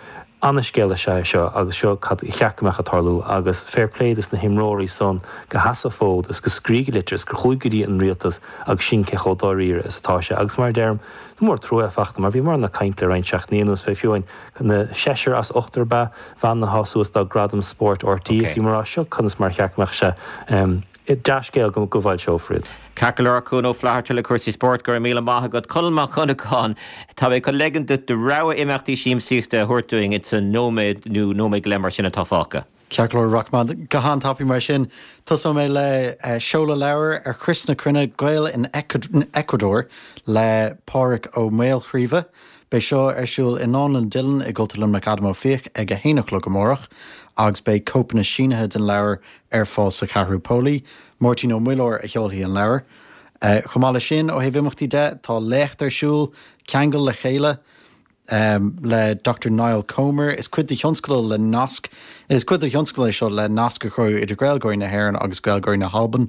Ana-scéal is ea é seo agus seo cad a cheart go mbeadh ag tarlú agus fair play dos na himreoirí san go sheas an fód is go scrígh litir is gur chuaigh go dtí an rialtas agus sin cé chomh dáiríre is atá sé agus mar a deirim is mór trua é fachta mar bhíomar ag caint le roinnt seachtainí anuas fé fiú amháin na seisear as ochtar ba bhean atá suas do Gradam Spóirt RTÉ is bhíomar á rá seo conas mar a cheart go mbeadh sé Dea-scéal go bhfoilseofar iad. Ceart go leor, Cuan Ó Flatharta le cúrsaí spóirt, go raibh míle maith agat. Conall Mac Dhonnagáin, tá mé chun leigean duit do rogha imeachtaí siamsaíochta a thabhairt dúinn ins an nóiméad nó nóiméad go leith mar sin atá fágtha. Ceart go leor, rachaidh mé go han-tapaidh mar sin. Tosóidh mé le seoladh leabhair ar Chrios na Cruinne, Gaeil in Ecuador le Pádraig Ó Maolchraoibhe. Beidh seo ar siúl i nDánlann Dillon i gCultúrlann Luimneach Adam Ó Fiaich ag a haon a chlog amárach agus beidh cóipeanna sínithe den leabhar ar fáil sa Cheathrú Póilí. Máirtín Ó Muilleoir a sheolfaidh an leabhar. Chomh maith leis sin, ó thaobh imeachtaí de, tá léacht ar siúl, Ceangal le Chéile, le Dr Niall Comer. Is cuid de thionscadal le nasc, is cuid de thionscadal é seo le nasc a chruthú idir Gaeilgeoirí na hÉireann agus Gaeilgeoirí na hAlban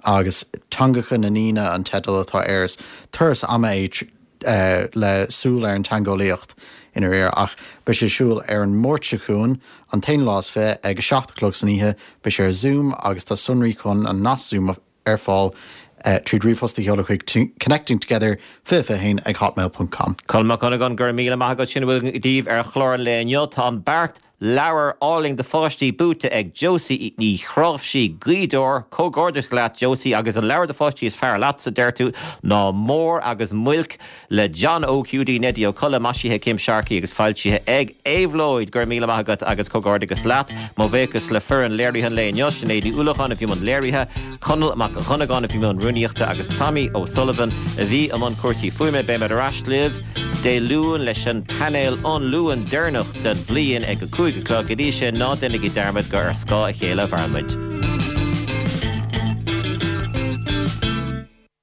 agus Teangacha na nDaoine an teideal atá air. Is turas ama é le súil ar an teangeolaíocht i ndáiríre ach beidh sé ar siúl ar an Máirt seo chugainn, an t-aonú lá is 20, ag a 7 a chlog san oíche. Beidh sé ar Zoom agus tá sonraí chun an nasc Zoom ar fáil tríd ríomhphost a sheoladh chuig connectingtogether 2021 ag hotmail ponc com. Conall Mac Dhonnagáin, go raibh míle maith agat. Sin a bhfuil daoibh ar chlár an lae inniu. Tá an beart Leabhar álainn do pháistí buaite ag Josie Ní Chráimhsí, Gaoth Dobhair. Comhghairdeas leat Josie agus an leabhar do pháistí is fearr leatsa, deir tú, ná Mór agus Muilc le John Óg Hiúdaí Neidí Ó Colla, maisithe ag Kim Sharkey agus foilsithe ag Éabhlóid. Go raibh míle maith agat agus comhghairdeas leat. Mo bhuíochas le foireann léirithe an lae inniu, Sinéad Ní Uallacháin a bhí i mbun léirithe, Conall Mac Dhonnagáin a bhí i mbun rúnaíochta agus Tommy O'Sullivan a bhí i mbun cúrsaí fuaime. Beimid ar ais libh. Dé Luain leis an painéal an Luan deireanach den bhliain ag a 5 a chlog. Go dtí sin, ná déanaigí dearmad gur ar scáth a chéile a mhaireann muid.